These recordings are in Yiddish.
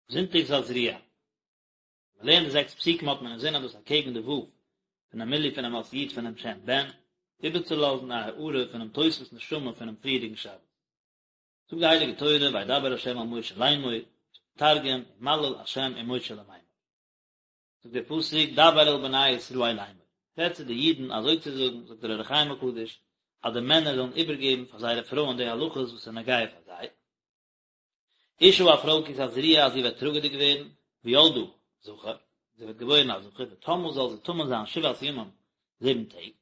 זונטאג תזריע. ווען מ'לערנט די זעקס פסוקים האט מען אינזין אז דאס אקעגן די ו' פונעם מילוי פונעם אות י' פונעם שם בן, איבערצולאזן א הארה פונעם תוספות נשמה פונעם פריערדיגן שבת. זאגט די הייליגע תורה וידבר ה' אל משה לאמור, תרגום, ומליל ה' עם משה למימר. זאגט דער פסוק דבר אל בני ישראל לאמור, רעד צו די אידן אזוי צו זאגן, זאגט דער אור החיים הקדוש, אז די מענער זאלן איבערגעבן פאר זייערע פרויען די הלכות וואס איז נוגע פאר זיי, אשה א פרוי כי תזריע אז זי וועט טראגעדיג ווערן, וילדה זכר, זי וועט געבוירן א זכר, וטמאה זאל זי טמא זיין שבעת ימים, זיבן טעג,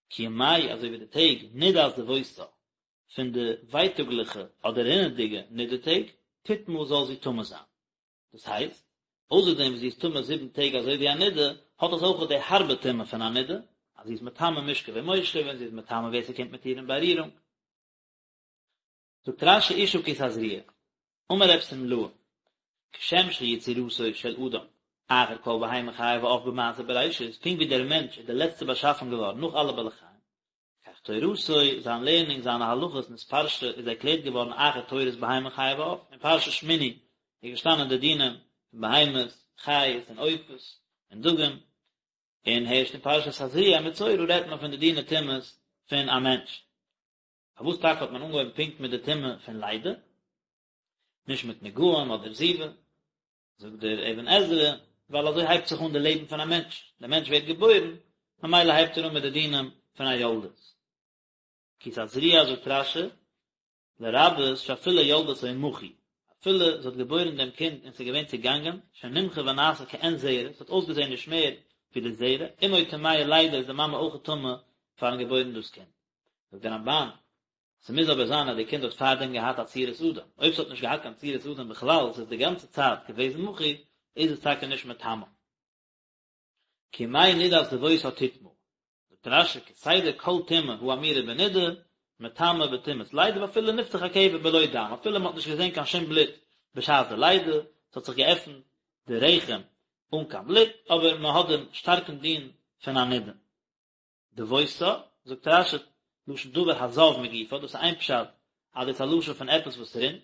כימי אזוי ווי די טעג נדת דוותה, פון די ווייטאגליכע אדער רינעדיגע נידה טעג, תטמא זאל זי טמא זיין. דאס הייסט, אויסער דעם וואס זי איז טמא זיבן טעג אזוי ווי א נידה, האט עס אויך די הארבע טומאה פון א נידה, אז זי איז מטמא משכב ומושב און זי איז מטמא ווער ס'קומט מיט איר אין בארירונג. זאגט רש"י אשה כי תזריע, אמר רב שמלאי, כשם שיצירתו של אדם אחר כל בהמה חיה ועוף במעשה בראשית, פונקט ווי דער מענטש איז דער לעצטער באשאפן געווארן נאך אלע בעלי חיים, כך תורתו, זיין לערנונג, זיינע הלכות נתפרשה איז ערקלערט געווארן אחר תורת בהמה חיה ועוף, אין פרשת שמיני איז געשטאנען די דינים פון בהמות, חיות און עופות און דגים, און הערשט אין פרשת תזריע מצורע רעדט מען פון די דיני טומאות פון א מענטש. פארוואס טאקע האט מען אנגעהויבן פונקט מיט די טומאה פון לידה, נישט מיט נגעים אדער זיבה? זאגט דער אבן עזרא, ווייל אזוי הייבט זיך אן די לעבן פון א מענטש, דער מענטש ווערט געבוירן, ממילא הייבט ער אן מיט די דינים פון א יולדת. כי תזריע זאגט רש"י, לרבות שאפילו ילדתו מחוי, אפילו זי האט געבוירן דעם קינד און ס'איז געווען צעגאנגען, שנמחה ונעשה כעין זרע, ס'האט אויסגעזען נישט מער ווי די זרע, אמו טמאה לידה איז די מאמע אויך טמא פארן געבוירן דאס קינד. זאגט דער רמב"ן, ס'מוז אבער זיין אז די קינד האט פארדעם געהאט א צורת אדם, אויב ס'האט נישט געהאט קיין צורת אדם בכלל, ס'איז די גאנצע צייט געוועזן מחוי, איז עס טאקע נישט מטמא. כימי נדת דוותה תטמא, זאגט רש"י כסדר כל טומאה האמורה בנידה, מטמאה בטומאת לידה ואפילו נפתח הקבר בלא דם, אפילו מ'האט נישט געזען קיין שום בלוט בשעת די לידה, ס'האט זיך געעפנט די רחם אן קיין בלוט, אבער מ'האט דעם שטארקן דין פון א נידה. דוותה, זאגט רש"י, לשון דבר הזב מגופה, דאס איז איין פשט אז דאס איז א לשון פון עפעס וואס רינט,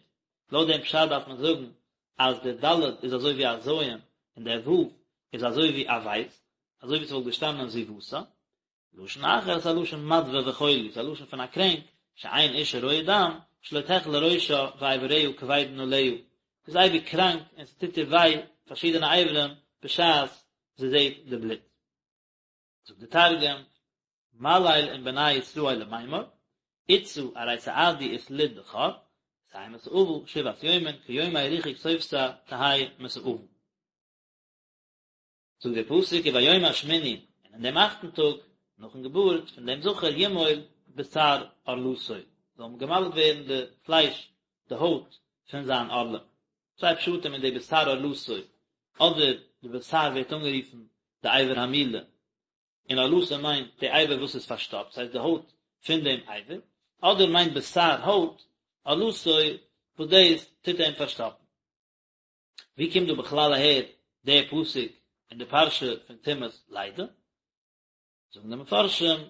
לויט דעם פשט דארף מען זאגן אז דער ד' איז אזוי ווי א ז' און דער ו' איז אזוי ווי א בית, אזוי ווי ס'וואלט געשטאנען זיבתה. לשון אחר איז א לשון מדוה וחולי, ס'איז א לשון פון א קרענק, שאין אשה רואה דם, שלא תחלה ראשה ואיבריה כבדין עליה, זי איז אייביג קראנק און ס'טוט איר וויי פארשידענע אברים בשעת זי זעט די בלוט. זאגט די תרגום, מליל עם בני ישראל למימר, אתתא ארי תעדי ותליד בכור, ותהי מסאבא שבעת יומין כיומי ריחוק סובתה תהי מסאבא. זאגט דער פסוק וביום השמיני, און אין דעם אכטן טאג, נאכן געבורט פון דעם זכר ימול בשר ערלתו, זאל געמל'ט ווערן די פלייש, די הויט, פון זיין ערלה. צוויי פשטים אין די בשר ערלתו, אדער די בשר ווערט אנגערופן די אבר המילה, און ערלתו מיינט די אבר וואס איז פארשטאפט, ס'הייסט די הויט פון דעם אבר, אדער מיינט בשר הויט, ערלתו וואס דאס טוט אים פארשטאפן. ווי קומט דא בכלל אהער דער פסוק אין די פרשה פון טומאת לידה? זאגן די מפרשים,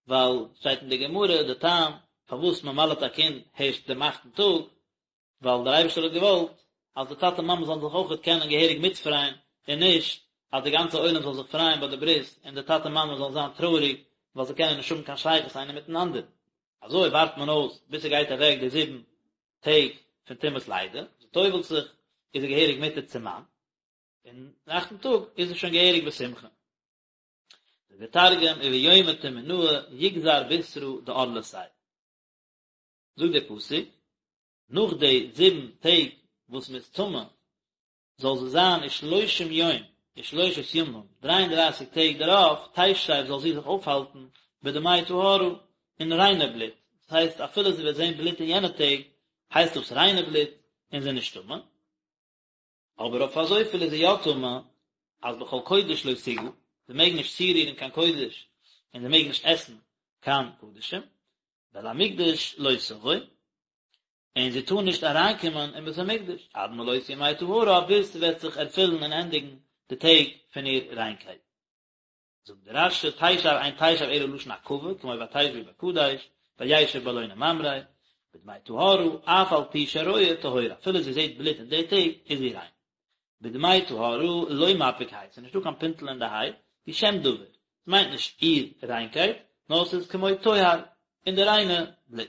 ווייל שטייט אין די גמרא די טעם פארוואס מען מל'ט א קינד הערשט דעם אכטן טאג, ווייל דער אייבערשטער האט געוואלט אז די טאטע מאמע זאלן זיך אויכעט קענען געהעריג מיטפרייען, און נישט אז די גאנצע עולם זאל זיך פרייען ביי די ברית און די טאטע מאמע זאלן זיין טרויעריג ווייל זיי קענען נישט האבן קיין שייכות איינער מיטן אנדערן. אזוי ווארט מען אויס ביז ס'גייט אוועק די זיבן טעג פון טומאת לידה, זי טובל'ט זיך, איז זי געהעריג מותר צום מאן, און דעם אכטן טאג איז זי שוין געהעריג בשמחה. זאגט דער תרגום, וביומא תמינאה יגזר בשרא דערלתיה. זאגט דער פסוק, נאך די זיבן טעג וואס מ'איז טמא, זאל זי זיין ושלושים יום ושלושת ימים, דריי און דרייסיג טעג דערויף, תשב זאל זי זיך אויפהאלטן בדמי טהרה, אין ריינע בלוט, דאס הייסט אפילו זי וועט זען בלוט אין יענע טעג, הייסט דאס ריינע בלוט, און זי איז נישט טמא. אבער אויף אזויפיל איז זי יא טמא, אז בכל קודש לא תגע, זי מעג נישט צורירן קיין קודש, און זי מעג נישט עסן קיין קדשים, ואל המקדש לא תבוא, און זי טאר נישט אריינקומען אין בית המקדש, עד מלאות ימי טהרה, ביז ס'וועט זיך ערפילן און ענדיגן די טעג פון איר ריינקייט. זאגט דער רש"י, תשב אין תשב אלא לשון עכבה, כמו ותשבו בקדש, וישב באלוני ממרא, בדמי טהרה, אף על פי שרואה טהורה, אפילו זי זעט בלוט אין די טעג, איז זי ריין. בדמי טהרה לא מפיק ה', ס'איז נישטא קיין פינטל אין די ה', הוא שם דבר, ס'מיינט נישט איר ריינקייט, נאר ס'איז כמו טוהר, אין די ריינע בלוט.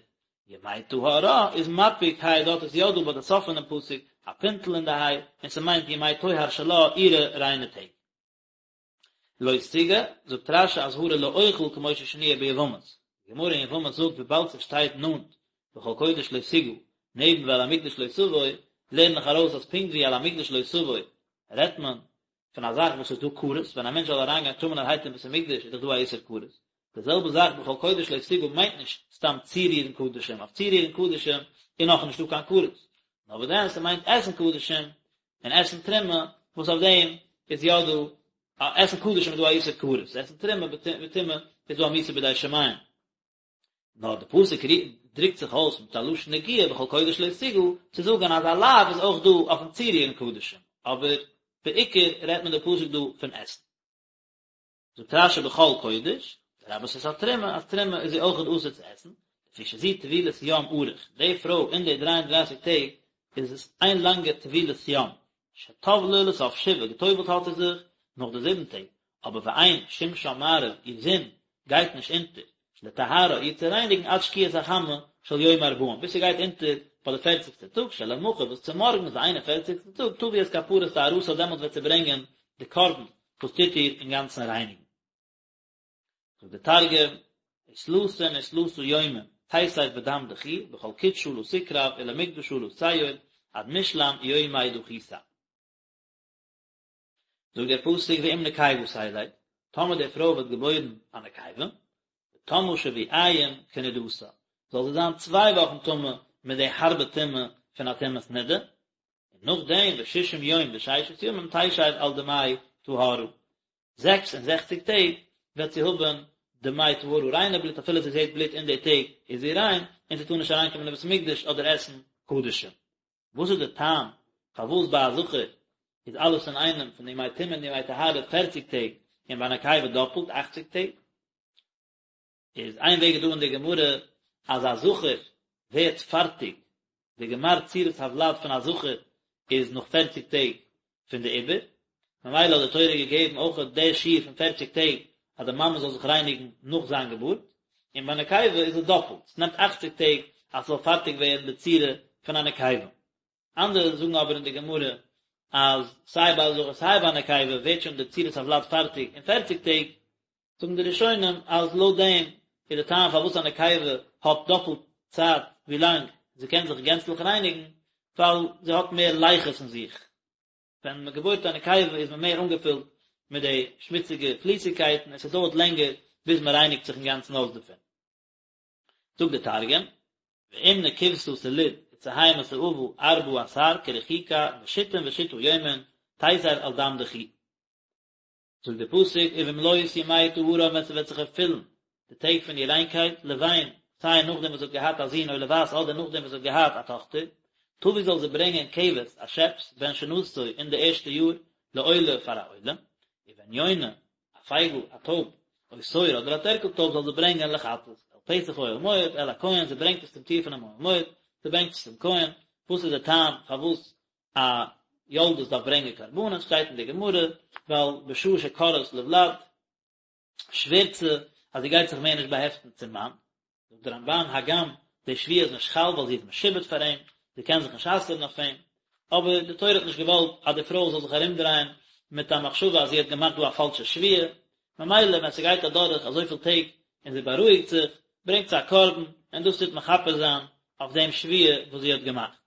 ימי טהרה איז מפיק ה', דארט איז יא דא ביי די סוף פונעם פסוק א פינטל אין די ה', און ס'מיינט ימי טוהר שלה, אירע ריינע טעג. לא תיגע, זאגט רש"י אזהרה לאוכל כמו ששנויה ביבמות, די גמרא אין יבמות זאגט וויבאלד ס'שטייט נאנט בכל קודש לא תיגע, נעבן ואל המקדש לא תבוא, לערן איך ארויס אז פונקט ווי אל המקדש לא תבוא רעדט מען פון א זאך וואס איז דא כרת, ווען א מענטש זאל אריינגיין טמא'נערהייט אין בית המקדש איז דאך דא א איסור כרת, די זעלבע זאך בכל קודש לא תיגע מיינט נישט סתם צורירן קדשים, אויף צורירן קדשים איז נאכנישט דא קיין כרת, נאר וואס דען ס'מיינט עסן קדשים און עסן תרומה, וואס אויף דעם איז יא דא, עסן קדשים איז דא א איסור כרת, עסן תרומה בטומאה איז דא א מיתה בידי שמים. נאר די פסוק דרוקט זיך אויס מיט א לשון נגיעה בכל קודש לא תיגע, צו זאגן אז א לאו איז אויך דא אויפן צורירן קדשים, אבער בעיקר רעדט מען די פסוק דא פון עסן. זאגט רש"י בכל קודש, לרבות את התרומה, אז תרומה איז זי אויכעט אסור צו עסן, לפי שזו טבילת יום ארוך, די פרוי אין די דריי און דרייסיג טעג איז עס איין לאנגע טבילת יום, שטבלה לסוף שבעה, געטובלט האט זי זיך נאך די זיבן טעג, אבער ואין שמשה מעריב, איר זון גייט נישט אונטער, לטהרה, איר צו רייניגן עד שקיעת החמה של יום ארבעים, ביז ס'גייט אונטער ביי די פערציגסטע טאג, שלמחר וואס צומארגנס די איין און פערציגסטע טאג, תביא את כפרת טהרתה דעמאלטס וועט זי ברענגען די קרבן וואס טוט איר אינגאנצן רייניגן. זאגט דער תרגום, ותלתין ותלתא יומין תיסב בדם דכי, בכל קודשא לא תקרב ולמקדשא לא תיעול, עד משלם יומי דכיתא. זאגט דער פסוק ואם נקבה תלד, טאמער די פרוי וועט געבוירן א נקבה, וטמאה שבועיים כנדתה, זאל זי זיין צוויי וואכן טמא מיט די הארבע טומאה פון א טומאת נדה, און נאכדעם וששים יום וששת ימים תשב על דמי טהרה, 66 טעג וועט זי האבן דמי טהרה ריינע בלוט אפילו זי זעט בלוט אין די טעג איז זי ריין, און זי טאר נישט אריינקומען אין בית המקדש אדער עסן קדשים. וואס איז די טעם פארוואס ביי א זכר איז אלעס אינאיינעם פון די ימי טומאה און די ימי טהרה פערציג טעג און ביי א נקבה דאפלט אכציג טעג? איז איין וועג איז דא אין די גמרא אז א זכר ווערט פארטיג די גמר צורת הוולד פון א זכר איז נאך פערציג טעג פון די עיבור, ממילא האט די תורה געגעבן אויך די שיעור פון פערציג טעג אז די מאמע זאל זיך רייניגן נאך זיין געבורט, און ביי נקבה איז עס דאפלט, עס נעמט אכציג טעג אז ס'זאל פארטיג ווערן די צורה פון א נקבה. אנדערע זאגן אבער אין די גמרא אז סיי ביי א זכר סיי ביי א נקבה ווערט שוין די צורת הוולד פארטיג אין פערציג טעג, זאגן די ראשונים אז לויט דעם איז די טעם פארוואס א נקבה האט דאפלט צייט ווי לאנג זי קען זיך גענצליך רייניגן, ווייל זי האט מער לחות אין זיך, ווען מען געבוירט א נקבה איז מען מער אנגעפילט מיט די שמוציגע פליסיגקייטן און ס'דויערט לענגער ביז מען רייניגט זיך אינגאנצן אויס דערפון. זאגט דער תרגום, ואם נקבתא תליד ותהי מסאבא ארבעה עשר כרחיקה ושתין ושתא יומין תיסב על דם דכי. זאגט דער פסוק ובמלאות ימי טהרה ווען ס'וועט זיך ערפילן די טעג פון איר ריינקייט, לבן, סיי נאכדעם וואס זי האט געהאט א זון או לבת אדער נאכדעם וואס זי האט געהאט א טאכטער, תביא זאל זי ברענגען כבש א שעפס בן שנתו אין די ערשטע יאר לעולה פאר א עולה, ובן יונה, א פייגל, א טויב, או תור אדער א טערקל טויב זאל זי ברענגען לחטאת, אל פתח אוהל מועד, אל הכהן, זי ברענגט עס צום טיר פונעם אוהל מועד, זי ברענגט עס צום כהן, וואס איז דער טעם פארוואס א יולדת דארף ברענגען קרבנות, שטייט אין די גמרא, ווייל בשעה שכורעת לוולד, שווערט זי אז זי גייט זיך מער נישט באהעפטן צום מאן, זאגט דער רמב"ן, הגם די שבועה איז נישט חל ווייל זי איז משועבד פאר אים, זי קען זיך נישט אסר'ן אויף אים, אבער די תורה האט נישט געוואלט אז די פרוי זאל זיך ארומדרייען מיט א מחשבה אז זי האט געמאכט דא א פאלשע שבועה, ממילא ווען ס'גייט אדורך אזויפיל טעג און זי בארואיגט זיך, ברענגט זי א קרבן, און דאס טוט מכפר זיין אויף דעם שבועה וואס זי האט געמאכט.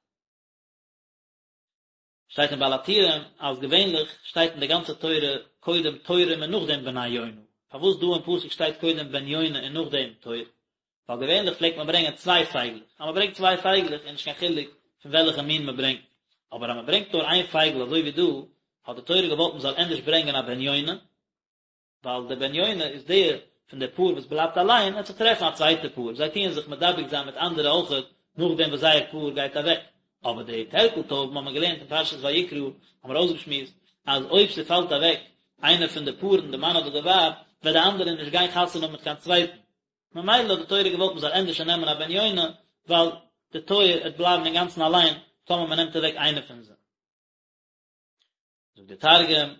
שטייט אין בעל הטורים אז געווענליך שטייט אין די גאנצע תורה קודם תורים און נאכדעם בני יונה, פארוואס דא אין פסוק שטייט קודם בן יונה און נאכדעם תור? ווייל געווענליך פלעגט מען ברענגען צוויי פייגלעך, אז מען ברענגט צוויי פייגלעך איז נישט קיין חילוק פון וועלכע מין מען ברענגט, אבער אז מען ברענגט נאר איין פייגל אזוי ווי דא, האט די תורה געוואלט מען זאל ענדערש ברענגען א בן יונה, ווייל דער בן יונה איז דער פון די פאר וואס בלייבט אליין, ער וועט זיך טרעפן א צווייטע פאר, זיי טוען זיך מדבק זיין מיט אנדערע אויכעט נאכדעם וואס זייער פאר גייט אוועק, אבער די טערקל טויבן האבן מיר געלערנט אין פרשת ויקרא, האבן מיר אויסגעשמועסט אז אויב ס'פאלט אוועק איינער פון די פארן, די מאן אדער די ווייב, וועט די אנדערע נישט גיין חתונה האבן מיט קיין צווייטן, ממילא האט די תורה געוואלט מ'זאל ענדערש נעמען א בן יונה, ווייל די תור וועט בלייבן אינגאנצן אליין טאמער מ'נעמט אוועק איינער פון זיי. זאגט דער תרגום,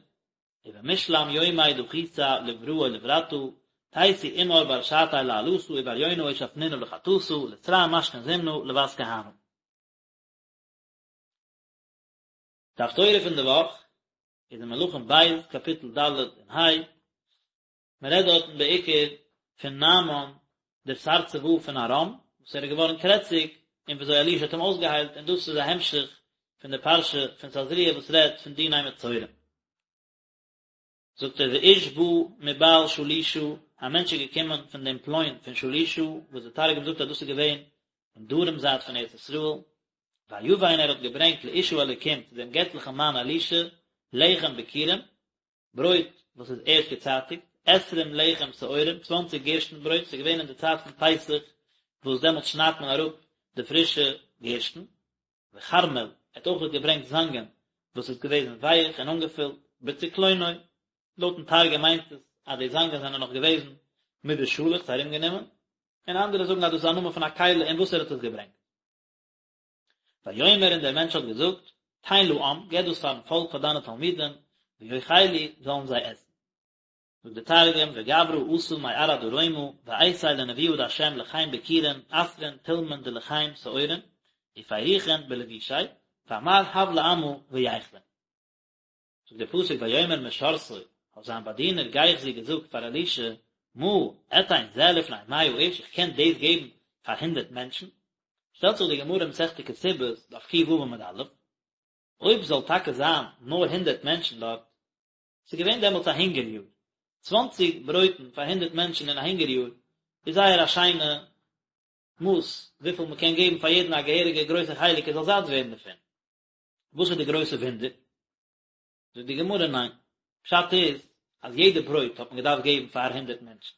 ובמשלם יומי דחיתא לברא ולברתא, תיתי עמר בר שעתיה לעלתא ובר יונה אושפנינא לחטאתא, לתרע משכין זימנא לות כהנא. די הפטורה פון די וואך איז אין מלכים ב' קאפיטל ד' און ה', מען רעדט דארטן בעיקר פון נעמן דער שר צבא פון ארם, וואס ער איז געווארן קרעציג, און וויאזוי אלישע האט אים אויסגעהיילט, און דאס איז א המשך פון די פרשה פון תזריע וואס רעדט פון דיני מצורעים. זאגט ער ואיש בא מבעל שלישה, א מענטש איז געקומען פון דעם פלוין פון שלישה, וואס דער תרגום זאגט אז דאס איז געווען אין דרום זייט פון ארץ ישראל, ויבא און ער האט געברענגט לאיש האלוקים צו דעם געטליכן מאן אלישע, לחם ביכורים, ברויט וואס איז ערשט געצייטיגט, עשרים לחם שעורים, צוואנציג גערשטן ברויט, ס'איז געווען אין די צייט פון פסח, וואס דעמאלטס שניידט מען אראפ די פרישע גערשטן, וכרמל, ער האט אויך געברענגט זאנגען וואס איז געוועזן ווייך און אנגעפילט, בצקלונו, לויטן תרגום מיינט עס אז די זאנגען זענען נאך געוועזן מיט די שאלעכץ ארומגענומען, און אנדערע זאגן אז דאס איז א נאמען פון א כלי אין וואס ער האט עס געברענגט. ויאמר און דער מענטש האט געזאגט, תן לעם, געב דאס פארן פאלק פאר דיינע תלמידים, ויאכלו, זאלן זיי עסן. זאגט דער תרגום, וגברא אתא מארעא דרומא, ואייתי לנבואה דהשם לחם ביכורין, עשרין תולמין דלחם שעורין, ופריכין בלבושיה, ואמר הב לעמא וייכלון. זאגט דער פסוק ויאמר משרתו, האט זיין באדינער גיחזי געזאגט פאר אלישע, מה אתן זה לפני מאה איש, איך קען דאס געבן פאר הונדערט מענטשן? שטעלט זיך די גמרא אין מסכת כתובות, דף ק"ו עמוד א', אויב זאל טאקע זיין נאר הונדערט מענטשן דארט, ס'איז געווען דעמאלטס א הונגער יאר, צוואנציג ברויטן פאר הונדערט מענטשן אין א הונגער יאר איז זייער א שיינע מאס וויפיל מ'קען געבן פאר יעדן א געהעריגע גרויסע חלק ער זאל זאט ווערן דערפון. וואס איז די גרויסע וואונדער? זאגט די גמרא ניין, פשט איז אז יעדע ברויט האט מען געדארפט געבן פאר הונדערט מענטשן,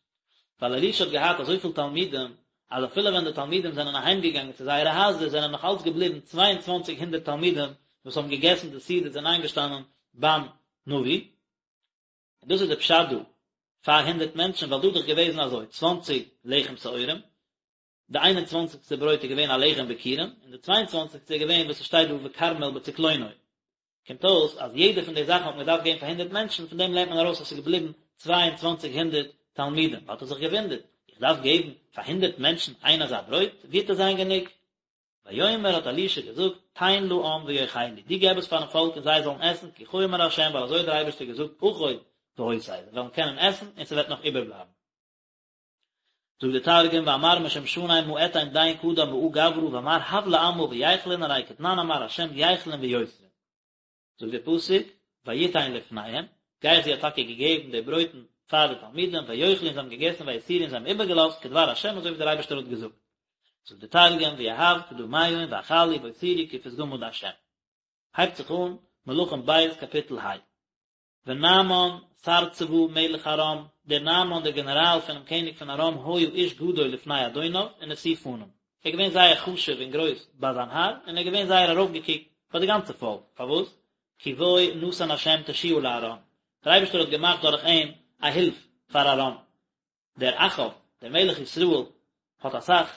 ווייל אלישע האט געהאט אזויפיל תלמידים, אז אפילו ווען די תלמידים זענען אהיים געגאנגען צו זייערע הייזער זענען נאך אלץ געבליבן צוויי און צוואנציג הונדערט תלמידים וואס האבן געגעסן די סעודות און איינגעשטאנען ביים נביא, און דאס איז די פשט דא פאר הונדערט מענטשן, ווייל דא איז דאך געוועזן אזוי, צוואנציג לחם שעורים, די איין און צוואנציגסטע ברויט איז געווען א לחם ביכורים, און די צוויי און צוואנציגסטע איז געווען וואס עס שטייט דא וכרמל בצקלונו. קומט אויס אז יעדע פון די זאכן האט מען געדארפט געבן פאר הונדערט מענטשן, פון דעם לערנט מען ארויס אז עס איז געבליבן צוויי און צוואנציג הונדערט תלמידים. האט ער זיך געוואונדערט, איך דארף געבן פאר הונדערט מענטשן איין אזא ברויט? ווי וועט עס זיין גענוג? ויאמר האט אלישע געזאגט, תן לעם ויאכלו, דו געב עס פארן פאלק און זיי זאלן עסן, כי כה אמר ה', ווייל אזוי האט דער אייבערשטער געזאגט, אכול והותר, זיי וועלן קענען עסן און ס'וועט נאך איבערבלייבן. זאגט דער תרגום ואמר משמשניה מה אתין דין קדם מאה גברא ואמר הב לעמא וייכלון ארי כתנן אמר ה' ייכלון ויותרון. זאגט דער פסוק ויתן לפניהם, גיחזי האט טאקע געגעבן די ברויטן פאר די תלמידים, ויאכלו און זיי האבן געגעסן ויותירו און זיי האבן איבערגעלאזט כדבר ה' אזוי ווי דער אייבערשטער האט געזאגט. זאגט דער תרגום ויהב קדמיהון ואכלו ואותירו כפתגמא דה'. הייבט זיך אן מלכים ב' קאפיטל ה. ונעמן שר צבא מלך ארם, דער נעמן דער גענעראל פונעם קעניג פון ארם היה איש גדול לפני אדוניו ונשוא פנים, ער איז געווען זייער חשוב און גרויס ביי זיין האר, און ער איז געווען זייער ארויפגעקוקט ביי די גאנצע פאלק, פארוואס? כי בו נתן השם תשועה לארם, דער אייבערשטער האט געמאכט דורך אים א הילף פאר ארם. דער אחאב, דער מלך ישראל, האט אסאך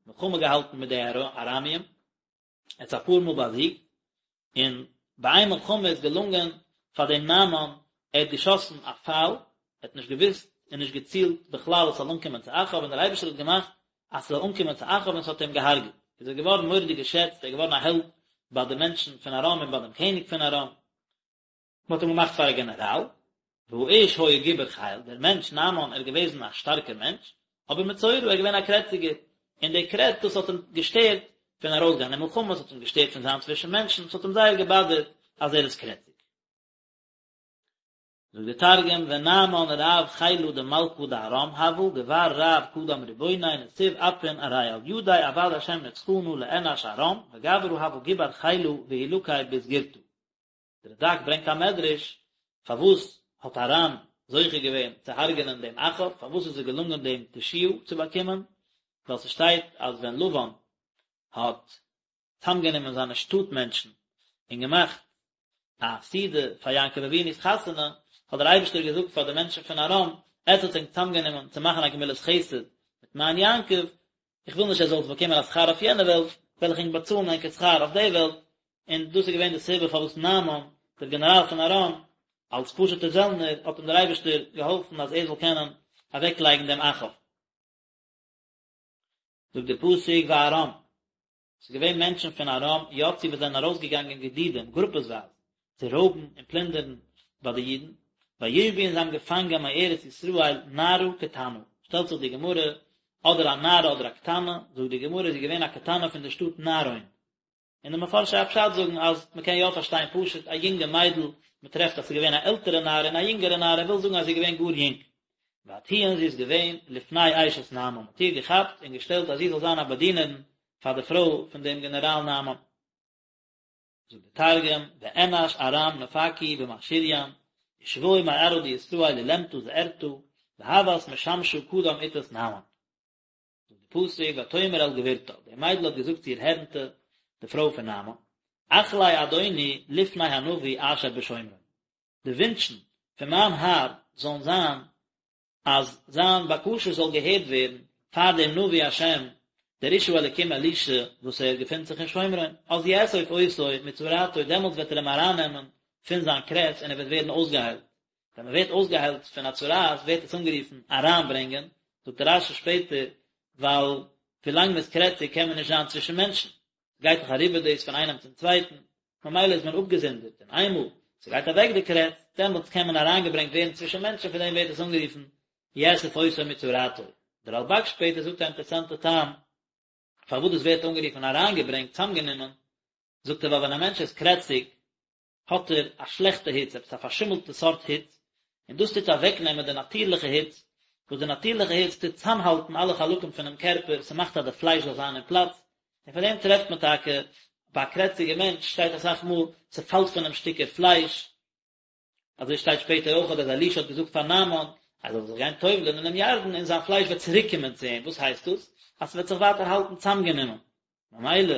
מלחמה געהאלטן מיט די ארמיים, ער האט זיי אפאר מאל באזיגט, און ביי איין מלחמה איז געלונגען פאר דעם נעמן, ער האט געשאסן א פייל, ער האט נישט געוואוסט און נישט געצילט בכלל עס זאל אנקומען צו אחאב, און דער אייבערשטער האט געמאכט אז ס'זאל אנקומען צו אחאב און ס'האט אים געהארגעט, איז ער געווארן מורא'דיג געשעצט, ער איז געווארן א העלד ביי די מענטשן פון ארם און ביי דעם קעניג פון ארם. מען האט אים געמאכט פאר א גענעראל, והאיש היה גיבור חיל, דער מענטש נעמן ער איז געוועזן א שטארקער מענטש, אבער מצורע ער איז געווען א קרעציגער, און די קרעץ דאס האט אים געשטערט פון ארויסגיין אין מלחמה, עס האט אים געשטערט פון זיין צווישן מענטשן, עס האט אים זייער געבאדערט אז ער איז קרעציג. זאגט דער תרגום, ונעמן רב חילא דמלכא דארם הוה, גבר רב קדם רבוניה נסיב אפין ארי על ידיה עבד השם נצחנא לאנש ארם, וגברא הוה גבר חילא והוא לקי בסגירתא. דער רד"ק ברענגט א מדרש, פארוואס האט ארם זוכה געווען צו הרג'נען דעם אחאב, פארוואס איז עס געלונגען דעם תשועה צו באקומען, ווייל ס'שטייט אז ווען לבן האט צאמגענומען זיינע שטאט מענטשן און געמאכט א סעודה פאר יעקב אבינו'ס חתונה, האט דער אייבערשטער געזאגט פאר די מענטשן פון ארם, עטס האטס ענק צאמגענומען צו מאכן א גמילת חסד מיט מיין יעקב, איך וויל נישט עטס זאלטס באקומען א שכר אויף יענע וועלט, וועל איך ענק באצאלן ענקער שכר אויף די וועלט, און דאס איז געווען די סיבה פארוואס נעמן. דער גענעראל פון ארם, אלס פשוט'ער זעלנער, האט אים דער אייבערשטער געהאלפן אז ער זאל קענען אוועקלייגן דעם אחאב. זאגט דער פסוק וארם, ס'איז געווען מענטשן פון ארם יצאו וואס זענען ארויסגעגאנגען גדודים, גרופעסווייז, צו רויבן און פלינדערן ביי די אידן, וישבו און זיי האבן געפאנגען מארץ ישראל נערה קטנה, שטעלט זיך די גמרא, אדער א נערה אדער א קטנה, זאגט די גמרא זי איז געווען א קטנה פון די שטאט נערון, און די מפרשי הפשט זאגן אז מען קען יא פארשטיין פשוט א יונגע מיידל, מען טרעפט אז ס'איז געווען א עלטערע נערה און א יונגערע נערה, וויל זאגן אז זי איז געווען גאר יונג. ותהי און זי איז געווען לפני אשת נעמן, מען האט איר געכאפט און געשטעלט אז זי זאל זיין א באדינערין פאר די פרוי פון דעם גענעראל נעמן. זאגט דער תרגום, ואנש ארם נפקו במכשיריין, ושבו מארעא דישראל עולמתא זעירתא, והות משמשא קדם אתת נעמן. זאגט די פסוק ותאמר אל גבירתה, די מיידל האט געזאגט צו איר הערנטע, די פרוי פון נעמן, אחלי אדוני לפני הנביא אשר בשומרון, די ווינטשן פון מיין האר זאלן זיין אז זיין בקשה זאל געהערט ווערן פאר דעם נביא השם, דער איש האלקים אלישע וואס ער געפינט זיך אין שומרון, אז יאסוף אותו מצרעתו, דעמאלטס וועט ער אים ארייננעמען פון זיין קרעץ און ער וועט ווערן אויסגעהיילט. ווען מען ווערט אויסגעהיילט פון א צרעת ווערט עס אנגערופן אריינברענגען, זאגט רש"י שפעטער, ווייל ווילאנג מען איז קרעציג קען מען נישט זיין צווישן מענטשן, גייט דאך אריבער דאס פון איינעם צום צווייטן, ממילא איז מען אפגעזונדערט, און איינמאל ס'גייט אוועק די קרעץ, דעמאלטס קען מען אריינגעברענגט ווערן צווישן מענטשן, פון דעם ווערט עס אנגערופן יאסף אותו מצרעתו. דער רלב"ג שפעטער זאגט א אינטערעסאנטע טעם פארוואס דאס ווערט אנגערופן אריינגעברענגט, צאמגענומען, זאגט ער ווייל ווען א מענטש איז קרעציג, האט ער א שלעכטע היץ, עפעס א פארשימלטע סארט היץ, און דאס טוט אוועקנעמען די נאטירליכע היץ, וואס די נאטירליכע היץ טוט צאמהאלטן אלע חלקים פונעם קערפער, ס'מאכט אז די פלייש זאל זיין אין פלאץ, און פאר דעם טרעפט מען טאקע ביי א קרעציגע מענטש שטייט אסאך מאל ס'פאלט פון אים שטיקער פלייש, אזוי שטייט שפעטער אויך אז אלישע האט געזאגט פאר נעמן אז ער זאל זיך גיין טובל'ען אינעם ירדן און זיין פלייש וועט צוריק קומען צו אים, וואס הייסט דאס? אז ס'וועט זיך ווייטער האלטן צאמגענומען, ממילא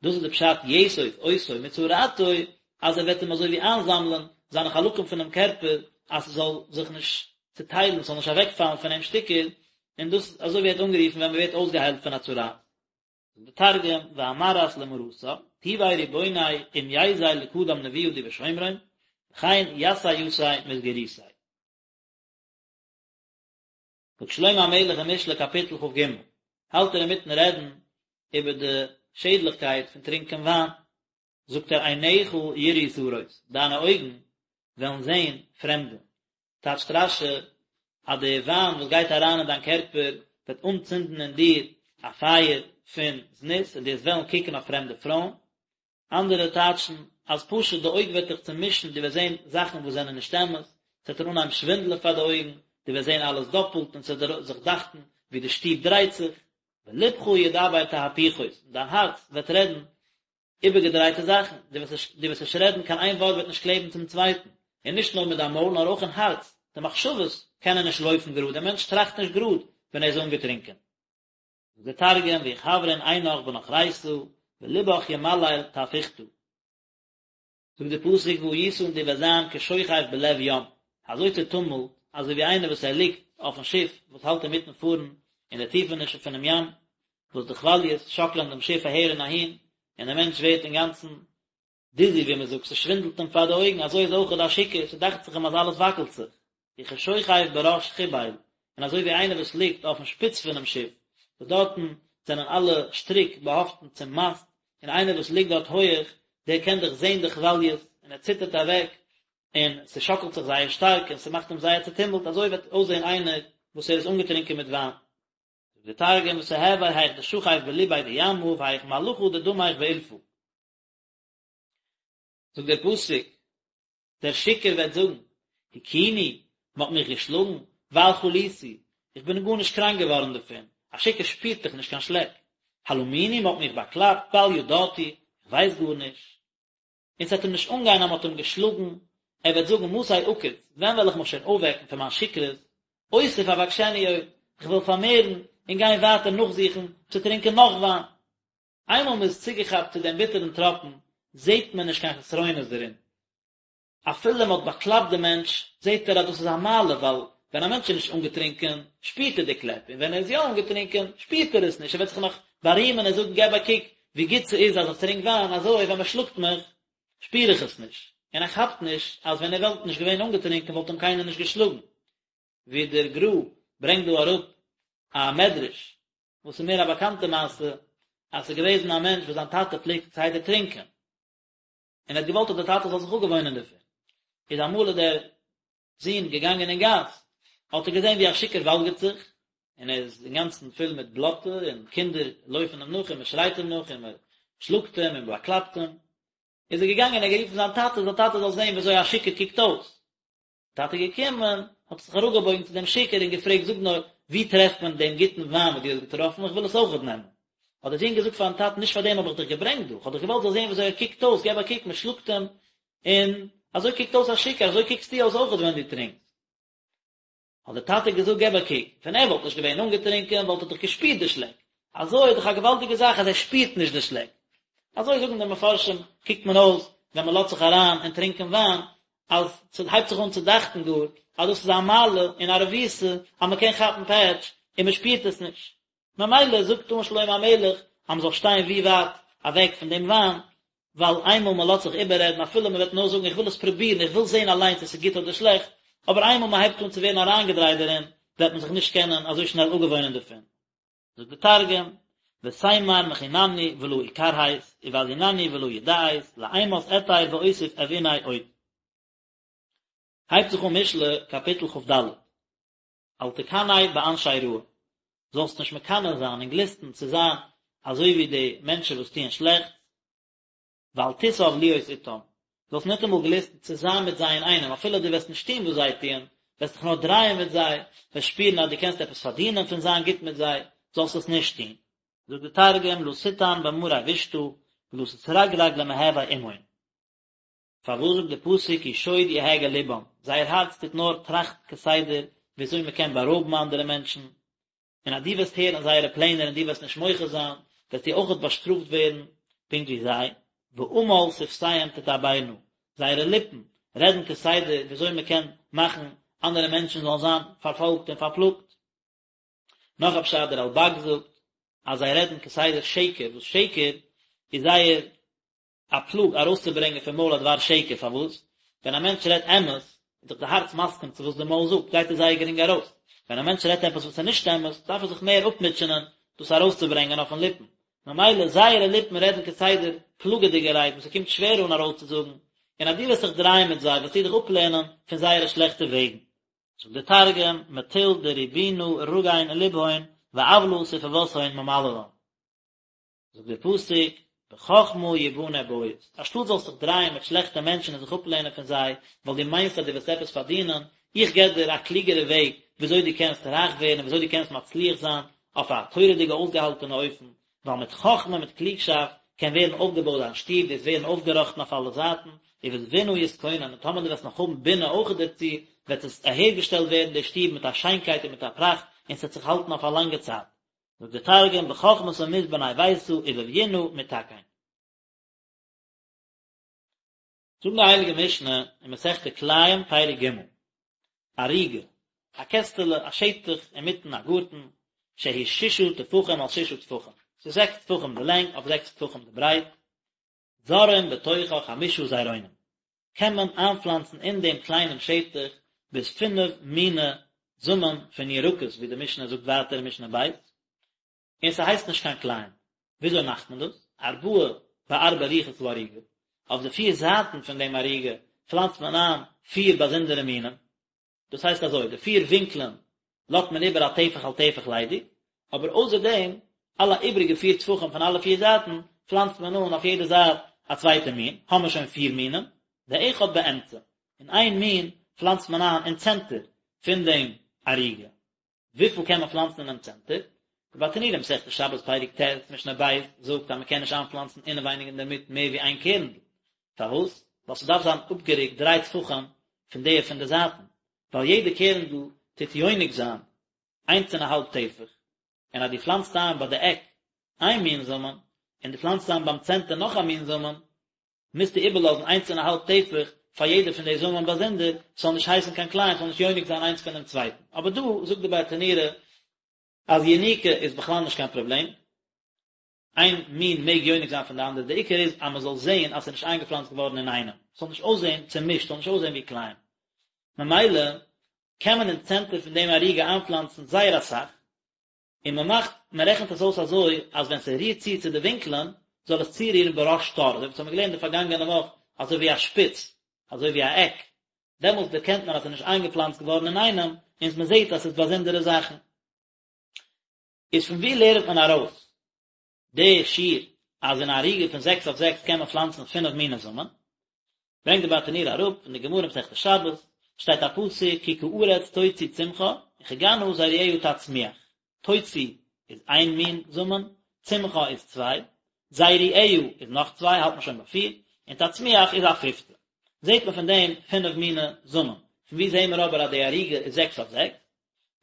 דאס איז די פשט יאסוף אותו מצרעתו, אז ער וועט אים אזוי ווי איינזאמלען זיינע חלקים פונעם קערפער אז ס'זאל זיך נישט צוטיילן, ס'זאל נישט אוועקפאלן פון אים שטיקער, און דאס אזוי ווערט אנגערופן ווען מ'ווערט אויסגעהיילט פון א צרעת. זאגט די תרגום, ואמרת למרתה, טובי ריבוני אם ייזיל לקדם נבואה די בשומרון, וכן יסי יתיה מסגירותיה. זאגט שלמה המלך אין משלי קאפיטל כ"ג, האלט ער אינמיטן רעדן איבער די שעדליכקייט פון טרינקען וויין, זאגט ער עיניך יראו זרות, דיינע אויגן וועלן זען פרעמדע, טייטשט רש"י אז די וויין וואס גייט אריין אין דיין קערפער וועט אנצינדן אין דיר א פייער פון זנות און דו וועסט וועלן קוקן אויף פרעמדע פרויען, אנדערע טייטשן אז פשוט די אויג וועט דיך צומישן, דו וועסט זען זאכן וואס זענען נישט אמת, ס'וועט דיר אנהייבן שווינדלען פאר די אויגן, דו וועסט זען אלעס דאפלט און ס'וועט דיר זיך דאכטן ווי די שטוב דרייט זיך, ולבך ידבר תהפוכות, און דיין הארץ וועט רעדן איבערגעדרייטע זאכן, דו וועסט נישט רעדן, קיין איין ווארט וועט נישט קלעבן צום צווייטן, און נישט נאר מיט דיין מויל נאר אויך אין הארץ, די מחשבות קענען נישט לויפן גראד, דער מענטש טראכט נישט גראד ווען ער איז אנגעטרונקען. זאגט דער תרגום ויכוורן עינך בנוכריתא ולבך ימליל תהפוכתא. זאגט דער פסוק והיית און דו וועסט זיין כשוכב בלב ים, אזוי צעטומלט, אזוי ווי איינער וואס ער ליגט אויפן שיף וואס האלט אינמיטן פארן אין די טיפענישן פונעם ים, וואס די כוואליעס שאקלען דעם שיף אהער און אהין, און דער מענטש ווערט אינגאנצן דיזי ווי מען זאגט, ס'שווינדלט אים פאר די אויגן, אזוי איז אויכעט א שיכור, ס'דאכט זיך אים אז אלעס וואקלט זיך, וכשוכב בראש חבל, און אזוי ווי איינער וואס ליגט אויפן שפיץ פונעם שיף, וואס דארטן זענען אלע שטריק באהאפטן צום מאסט, און איינער וואס ליגט דארט הויעך, דער קען דאך זען די כוואליעס, און ער ציטערט אוועק, און ס'שאקלט זיך זייער שטארק, און ס'מאכט אים זייער צעטומלט, אזוי וועט אויסזען איינער וואס ער איז אנגעטרונקען מיט וויין. זאגט דער תרגום, ותהוי היך דשכיב בליביה דימא, והיך מלחא דדמיך באילפא. זאגט דער פסוק, דער שיכור וועט זאגן, הכוני, מען האט מיך געשלאגן, בל חליתי, איך בין גארנישט קראנק געווארן דערפון, א שיכור שפירט דאך נישט קיין שלעק, הלמוני, מען האט מיך באקלאפט, בל ידעתי, איך ווייס גארנישט. און ס'וועט אים נישט אנגיין אז מען האט אים געשלאגן, ער וועט זאגן, מתי אקיץ, ווען וועל איך מיך שוין אויפוועקן פון מיין שכרות, אוסיף אבקשנו עוד, איך וועל פארמערן און גיין ווייטער נאכזוכן צו טרינקען נאך וויין. איינמאל מען איז צוגעכאפט צו דעם ביטערן טראפן, זעט מען נישט קיין חסרונות דערין. אפילו מען האט באקלאפט דעם מענטש, זעט ער אז דאס איז א מעלה, ווייל ווען א מענטש איז נישט אנגעטרונקען, שפירט ער די קלעפ, און ווען ער איז יא אנגעטרונקען, שפירט ער עס נישט, ער וועט זיך נאך בארימען און זאגן, געב א קוק ווי גוט ס'איז אז איך טרינק וויין, אזוי ווען מען שלאגט מיך. שפיר איך עס נישט, און ער כאפט נישט אז ווען ער וואלט נישט געווען אנגעטרינקען וואלט אים קיינער נישט געשלאגן. ווי דער גר"א ברענגט דא אראפ א מדרש, וואס איז מער א באקאנטע מעשה, אז ס'איז געוועזן א מענטש וואס זיין טאטע פלעגט כסדר טרינקען, און ער האט געוואלט אז דער טאטע זאל זיך אפגעוואוינען דערפון, איז אמאל איז דער זון געגאנגען אין גאס, האט ער געזען ווי א שיכור וואלגערט זיך, און ער איז אינגאנצן פול מיט בלאטע, און קינדער לויפן אים נאך, און מען שרייט אים נאך, און מען שלאגט אים, און מען באקלאפט אים. איז ער געגאנגען און ער האט גערופן זיין טאטע, זיין טאטע זאל זען ווי אזוי א שיכור קוקט אויס. טאטע געקומען, האט זיך אראפגעבויגן צו דעם שיכור און געפרעגט, זאג נאר, וואו טרעפט מען דעם גוטן וויין וואס דו האסט געטראפן, איך וויל עס אויכעט נעמען. האט דער זון געזאגט פארן טאטן, נישט פאר דעם האב איך דיך געברענגט דא, איך האב דיך געוואלט זאלסט זען ווי אזוי ער קוקט אויס, געב א קוק, מען שלאגט אים, און אזוי קוקט אויס א שיכור, אזוי קוקסטו אויס אויכעט ווען דו טרינקסט. האט דער טאטע געזאגט געב א קוק, ווען ער וואלט נישט געווען אנגעטרינקען וואלט ער דאך געשפירט די שלעק, אזוי איז דאך א געוואלדיגע זאך אז ער שפירט נישט די שלעק. אזוי זאגן די מפרשים, קוקט מען אויס ווען מען לאזט זיך אריין אין טרינקען וויין, אז ס'הייבט זיך אן צו דאכטן גאר אז דאס איז א מעלה און א רבותא אז מען קען כאפן פעטש און מען שפירט עס נישט. ממילא זאגט אן שלמה המלך אז מען זאל שטיין ווי ווייט אוועק פון דעם וויין, ווייל איינמאל מען לאזט זיך איבעררעדן אפילו מען וועט נאר זאגן איך וויל עס פרובירן איך וויל זען אליינס צו עס איז גוט אדער שלעכט, אבער איינמאל מען הייבט אן צו ווערן אריינגעדרייט דערין וועט מען זיך נישט קענען אזוי שנעל אפגעוואוינען דערפון. זאגט די תרגום, ותימר מחינני ולא אכרהת, ובזינני ולא ידעית, לאימת אתיר ואוסיף אבעיניה עוד. הייבט זיך אן משלי קאפיטל כ"ד. אל תקנא באנשי רעה, זאלסט נישט מקנא זיין און גליסטן צו זיין אזוי ווי די מענטשן וואס טוען שלעכטס, ואל תתאו להיות אתם, זאלסט ניטאמאל גליסטן צו זיין מיט זיי אינאיינעם, אפילו דו וועסט נישט טון וואס זיי טוען, וועסט דיך נאר דרייען מיט זיי, וועסט שפירן אז דו קענסט עפעס פארדינען פון זיין גוט מיט זיי, זאלסט עס נישט טון. זאגט די תרגום, לא תטען במרי בישתא, ולא תתרגרג למהוי עמהון. פארוואס זאגט די פסוק כי שוד יהגה לבם, זייער הארץ טוט נאר טראכטן כסדר וויאזוי מען קען בארויבן אנדערע מענטשן, און אז דו וועסט הערן זייערע פלענער און דו וועסט נישט מוחה זיין, וועסטו אויכעט באשטראפט ווערן פונקט ווי זיי, ועמל שפתיהם תדברנה, זייערע ליפן רעדן כסדר וויאזוי מען קען מאכן אנדערע מענטשן זאלן זיין פארפאלגט און פארפלאגט. נאך א פשט, דער רלב"ג זאגט אז זיי רעדן כסדר שקר, וואס שקר איז זייער א פלאג ארויסצוברענגען פון מויל א דבר שקר, פארוואס? ווען א מענטש רעדט אמת, איז דאך די הארץ מסכים צו וואס די מויל זאגט, גייט עס זייער גרינג ארויס, ווען א מענטש רעדט עפעס וואס איז נישט אמת, דארף ער זיך מער אפמוטשענען דאס ארויסצוברענגען אויפן ליפן, ממילא זייערע ליפן רעדן כסדר פלאגעדיגע רייד וואס ס'קומט שווער אן ארויסצוזאגן, און אז דו וועסט זיך דרייען מיט זיי וועסטו דיך אפלערנען פון זייערע שלעכטע וועגן. זאגט דער תרגום, מטול דריבונא רגין לבהון ועוולא ספוותהון ממללן. זאגט דער פסוק, בחכמה יבנה בית, אנשטאט זאלסט זיך דרייען מיט שלעכטע מענטשן און זיך אפלערנען פון זיי, ווייל דו מיינסט אז דו וועסט עפעס פארדינען, איך געב דיר א קלוגערע וועג וויאזוי דו קענסט רייך ווערן און וויאזוי דו קענסט מצליח זיין אויף א תורה'דיגע אויסגעהאלטענע אופן, ווייל מיט חכמה מיט קלוגשאפט קען ווערן אויפגעבויט דיין שטוב, דו'סט ווערן אויפגעראכטן אויף אלע זייטן, ובתבונה יתכונן, און טאמער דו וועסט נאך האבן בינה אויך דערצו, וועט עס אהערגעשטעלט ווערן די שטוב מיט א שיינקייט און מיט א פראכט, און ס'וועט זיך האלטן אויף א לאנגע צייט. זאגט דער תרגום בחכמתא מתבני ביתא ובביונא מתכן. זאגט די הייליגע משנה אין מסכת כלאים פרק ג', ערוגה, א קעסטעלע, א שטח אינמיטן א גארטן, שהיא ששה טפחים על ששה טפחים, ס'איז זעקס טפחים די לענג אויף זעקס טפחים די ברייט, זורעים בתוכה חמשה זרעונים, קען מען איינפלאנצן אין דעם קליינעם שטח ביז פינף מיני זאמען פון ירקות ווי די משנה זאגט ווייטער אין משנה ב', און ס'הייסט נישט קיין כלאים. וויאזוי מאכט מען דאס? ארבעה בארבע רוחות הערוגה, אויף די פיר זייטן פון דעם ערוגה פלאנצט מען איין פיר באזונדערע מינים, דאס הייסט אזוי, די פיר ווינקלען לאזט מען איבער א טפח על טפח ליידיג, אבער אויסער דעם, אלע איבריגע פיר טפחים פון אלע פיר זייטן, פלאנצט מען אן אויף יעדע זייט א צווייטע מין, האמער שוין פיר מינים, ואחד באמצע, און איין מין פלאנצט מען איין אין צענטער פון דעם ערוגה. וויפיל קען מען פלאנצן אינעם צענטער? די ברטנורא מסכת שבת פרק ט' משנה ב' זאגט אז מען קען נישט איינפלאנצן אינעווייניג אינדערמיט מער ווי איין קערנדל. פארוואס? ווייל ס'דארף זיין אפגערוקט דריי טפחים פון די פון די זייטן, ווייל יעדע קערנדל טוט יונק זיין איינס און א האלב טפח, און אז דו פלאנצט איין ביי די עק איין מין זאמען, און דו פלאנצט איין ביים צענטער נאך א מין זאמען, מוזטו איבערלאזן איינס און א האלב טפח פאר יעדע פון די זאמען באזונדער, ס'זאל נישט הייסן קיין כלאים, ס'זאל נישט יונק זיין איינס פונעם צווייטן. אבער דא זאגט די ברטנורא אז יניקה איז בכלל נישט קיין פראבלעם. איין מין מעג יונק זיין פון די אנדערע, די עיקר איז אז מען זאל זען אז ס'איז נישט איינגעפלאנצט געווארן אינאיינעם, ס'זאל נישט אויסזען צומישט, ס'זאל נישט אויסזען ווי כלאים. ממילא קען מען אין צענטער פון דעם ערוגה איינפלאנצן זייער אסאך, און מען מאכט, מען רעכנט עס אויס אזוי אז ווען ס'רירט צו צו די ווינקלען, זאל עס צורירן בראש תור, אזוי ווי אונז האבן געלערנט די פארגאנגענע וואך, אזוי ווי א שפיץ, אזוי ווי א עק, דעמאלטס דערקענט מען אז ס'איז נישט איינגעפלאנצט געווארן אינאיינעם, און מען זעט אז ס'איז באזונדערע זאכן. איז פון וואו לערנט מען ארויס די שיעור אז אין א ערוגה פון זעקס אויף זעקס קען מען פלאנצן פינף מיני זאמען? ברענגט די ברטנורא אראפ פון די גמרא מסכת שבת, שטייט א פסוק כי כארץ תוציא צמחה וכגנה זרועיה תצמיח, תוציא איז איין מין זאמען, צמחה איז צוויי, זרועיה איז נאך צוויי האלט מען שוין ביי פיר, און תצמיח איז א פיפטע. זעט מען פון דעם פינף מיני זאמען. פון וואו זעהן מיר אבער אז די ערוגה איז זעקס אויף זעקס?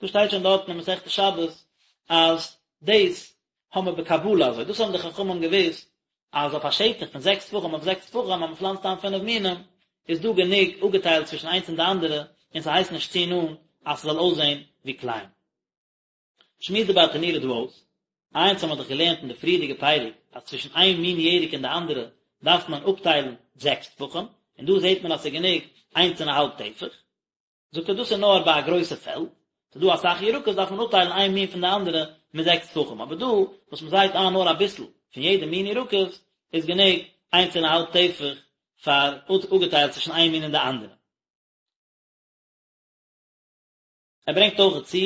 דא שטייט שוין דארטן אין מסכת שבת אז דאס האבן מיר בקבלה אזוי, דאס האבן די חכמים געוואוסט אז אויף א שטח פון זעקס טפחים אויף זעקס טפחים אז מען פלאנצט איין פינף מינים איז דא גענוג אפגעטיילט צווישן איינס און די אנדערע און ס'הייסט נישט צו נאנט אז ס'זאל אויסזען ווי כלאים. שמועסט די ברטנורא דא אויס, אונז האבן מיר דאך געלערנט אין די פריערדיגע פרק אז צווישן איין מין ירק און די אנדערע דארף מען אפטיילן זעקס טפחים, און דא זעט מען אז ס'איז גענוג איינס און א האלב טפח. זאגט ער דאס איז נאר ביי א גרויסע פעלד, ס'איז דא אסאך ירקות דארף מען אפטיילן איין מין פון די אנדערע מיט זעקס טפחים, אבער דא וואס מען זייט איין נאר אביסל פון יעדע מין ירקות איז גענוג איינס און א האלב טפח פאר אפגעטיילט צווישן איין מין און די אנדערע. ער ברענגט אויך צו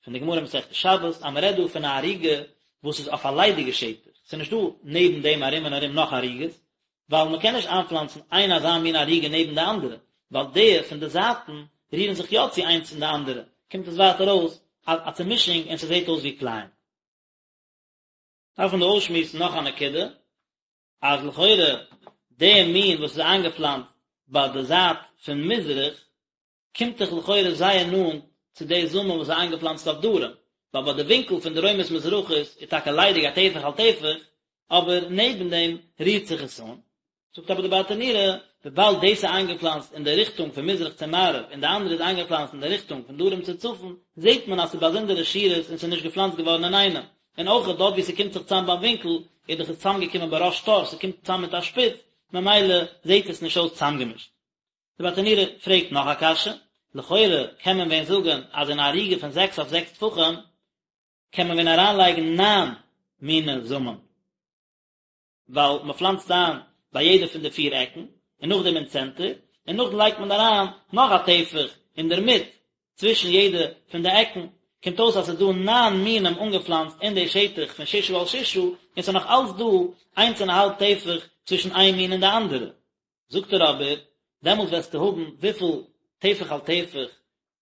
פון די גמרא מסכת שבת אז מען רעדט דא פון א ערוגה וואס איז אויף א ליידיגע שטח, ס'איז נישט דא נעבן דעם ארום און ארום נאך ערוגות, ווייל מען קען נישט איינפלאנצן איין אזא מין ערוגה נעבן די אנדערע, ווייל די פון די זייטן רירן זיך יא צו איינס אין די אנדערע, קומט עס ווייטער אויס א א צומישונג און ס'זעט אויס ווי כלאים. דארף מען דא אויסשמועסן נאך א נקודה, אז לכאורה די מין וואס איז איינגעפלאנצט ביי די זייט פון מזרח, קומט דאך לכאורה זייער נאנט צו די זאמען וואס איז איינגעפלאנצט אויף דרום, ווייל ביי די ווינקל פון דרומית מזרחית איז טאקע ליידיג א טפח על טפח, אבער נעבן דעם רירט זיך עס אן. זאגט אבער די ברטנורא, וויבאלד דאס איז איינגעפלאנצט אין די ריכטונג פון מזרח צו מערב און די אנדערע איז איינגעפלאנצט אין די ריכטונג פון דרום צו צפון, זעט מען אז ס'איז באזונדערע שורות און ס'איז נישט געפלאנצט געווארן אינאיינעם. און אויך דארט וואו ס'קומט זיך צאם ביים ווינקל, איז דאך עס צאמגעקומען בראש תור, ס'קומט צאם מיט א שפיץ, ממילא זעט עס נישט אויס צאמגעמישט. די ברטנורא פרעגט נאך א קשיא, לכאורה קען מען ווען זאגן אז אין א ערוגה פון זעקס אויף זעקס טפחים קען מען ווען אריינלייגן ניין מיני זאמען, ווייל מען פלאנצט איין ביי יעדע פון די פיר עקן, און נאכדעם אין צענטער, און נאכדעם לייגט מען אריין נאך א טפח אינדערמיט צווישן יעדע פון די עקן, קומט אויס אז ס'איז דא ניין מינים אנגעפלאנצט אין די שטח פון ששה על ששה, און ס'איז נאך אלץ דא איינס און א האלב טפח צווישן איין מין און די אנדערע. זאגט ער אבער, דעמאלט וועסטו האבן וויפיל טפח על טפח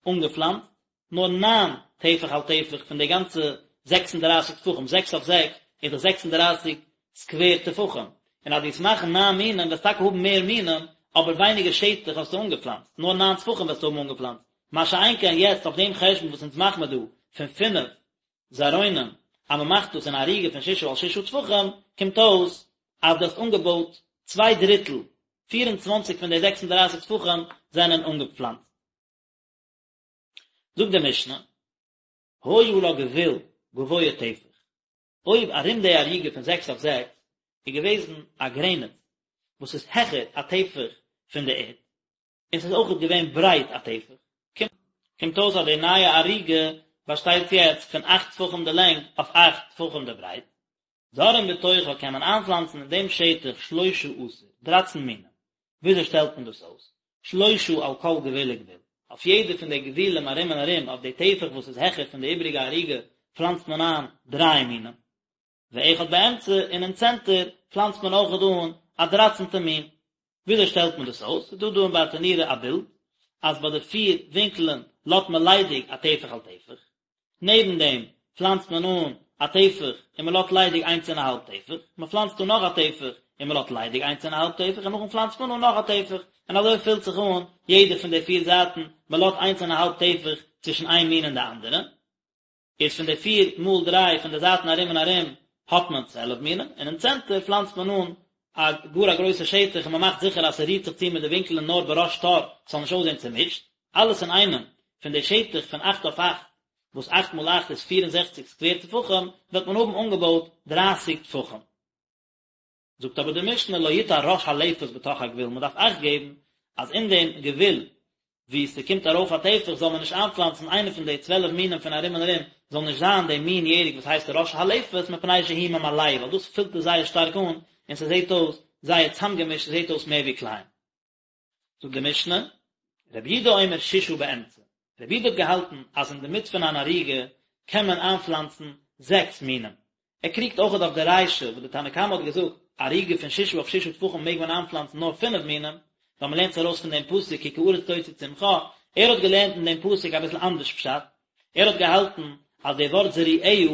אנגעפלאנצט? נאר ניין טפח על טפח פון די גאנצע זעקס און דרייסיג טפחים, זעקס אויף זעקס איז דאך 36 סקווער טפחים, און אז דו וועסט מאכן ניין מינים וועסטו טאקע האבן מער מינים, אבער ווייניגער שטח האסטו אנגעפלאנצט, נאר ניין טפחים וועסטו האבן אנגעפלאנצט, מה שאין כן יעצט אויף דעם חשבון וואס אונז מאכן מיר דא פון פינף זרעונים, אז מען מאכט דאס אין א ערוגה פון ששה על ששה טפחים, קומט אויס אז דו האסט אנגעבויט צוויי דריטל, 24 פון די 36 טפחים זענען אנגעפלאנצט. זאגט די משנה, היה לה גבול גבוה טפח, אויב ארום די ערוגה פון זעקס אויף זעקס איז געוועזן א גרעניץ וואס איז העכער א טפח פון די ערד, און ס'איז אויכעט געווען ברייט א טפח, קומט אויס אז די נייע ערוגה באשטייט יעצט פון אכט טפחים די לענג אויף אכט טפחים די ברייט. זורעין בתוכה קען מען איינפלאנצן אין דעם שטח שלשה עשר, דרייצן מינים. וויאזוי שטעלט מען דאס אויס? שלשה על כל גבול וגבול, אויף יעדע פון די גבולים ארום און ארום אויף די טפח וואס איז העכער פון די איבריגע ערוגה פלאנצט מען איין דריי מינים. ואחד באמצע, און אין צענטער פלאנצט מען אויכעט אן א דרייצנטע מין. וויאזוי שטעלט מען דאס אויס? ס'איז דא דא אין ברטנורא א בילד, אז ביי די פיר ווינקלען לאזט מען ליידיג א טפח על טפח, נעבן דעם פלאנצט מען אן א טפח און מען לאזט ליידיג איינס און א האלב טפח, מען פלאנצט אן נאך א טפח און מען לאזט ליידיג איינס און א האלב טפח און נאכדעם פלאנצט מען אן נאך א טפח, און אזוי פילט זיך אן יעדע פון די פיר זייטן, מען לאזט איינס און א האלב טפח צווישן איין מין און די אנדערע. איז פון די פיר מאל דריי פון די זייטן ארום און ארום האט מען 12 מינים, און אין צענטער פלאנצט מען אן א גאר א גרויסע שטח און מען מאכט זיכער אז ס'רירט זיך צו מיט די ווינקלען נאר בראש תור ס'זאל נישט אויסזען צומישט, אלעס אינאיינעם פון די שטח פון אכט אויף אכט. וואס אכט מאל אכט איז 64 סקווער טפחים, וועט מען האבן אנגעבויט דרייסיג טפחים. זאגט אבער די משנה לא יטע ראש הלפת בתוך הגבול, מען דארף אכט געבן אז אין דעם גבול וואו ס'קומט ארויף א טפח זאל מען נישט איינפלאנצן איינע פון די 12 מינים פון ארום און ארום, זאל נישט זיין די מין ירק וואס הייסט ראש הלפת מפני שהוא ממלאהו, ווייל דאס פילט עס זייער שטארק אן און ס'זעט אויס זייער צאמגעמישט, ס'זעט אויס מער ווי כלאים. זאגט די משנה, רבי יהודה אומר ששה באמצע, רבי יהודה האט געהאלטן אז אין די מיט פון אן ערוגה קען מען איינפלאנצן זעקס מינים, ער קריגט אויכעט אויף די רישא וואס די תנא קמא האט געזאגט, ערוגה פון ששה אויף ששה טפחים מעג מען איינפלאנצן נאר פינף מינים, ווייל מען לערנט עס ארויס פון דעם פסוק כי כארץ תוציא צמחה, ער האט געלערנט אין דעם פסוק אביסל אנדערש פשט, ער האט געהאלטן אז די ווארט זרועיה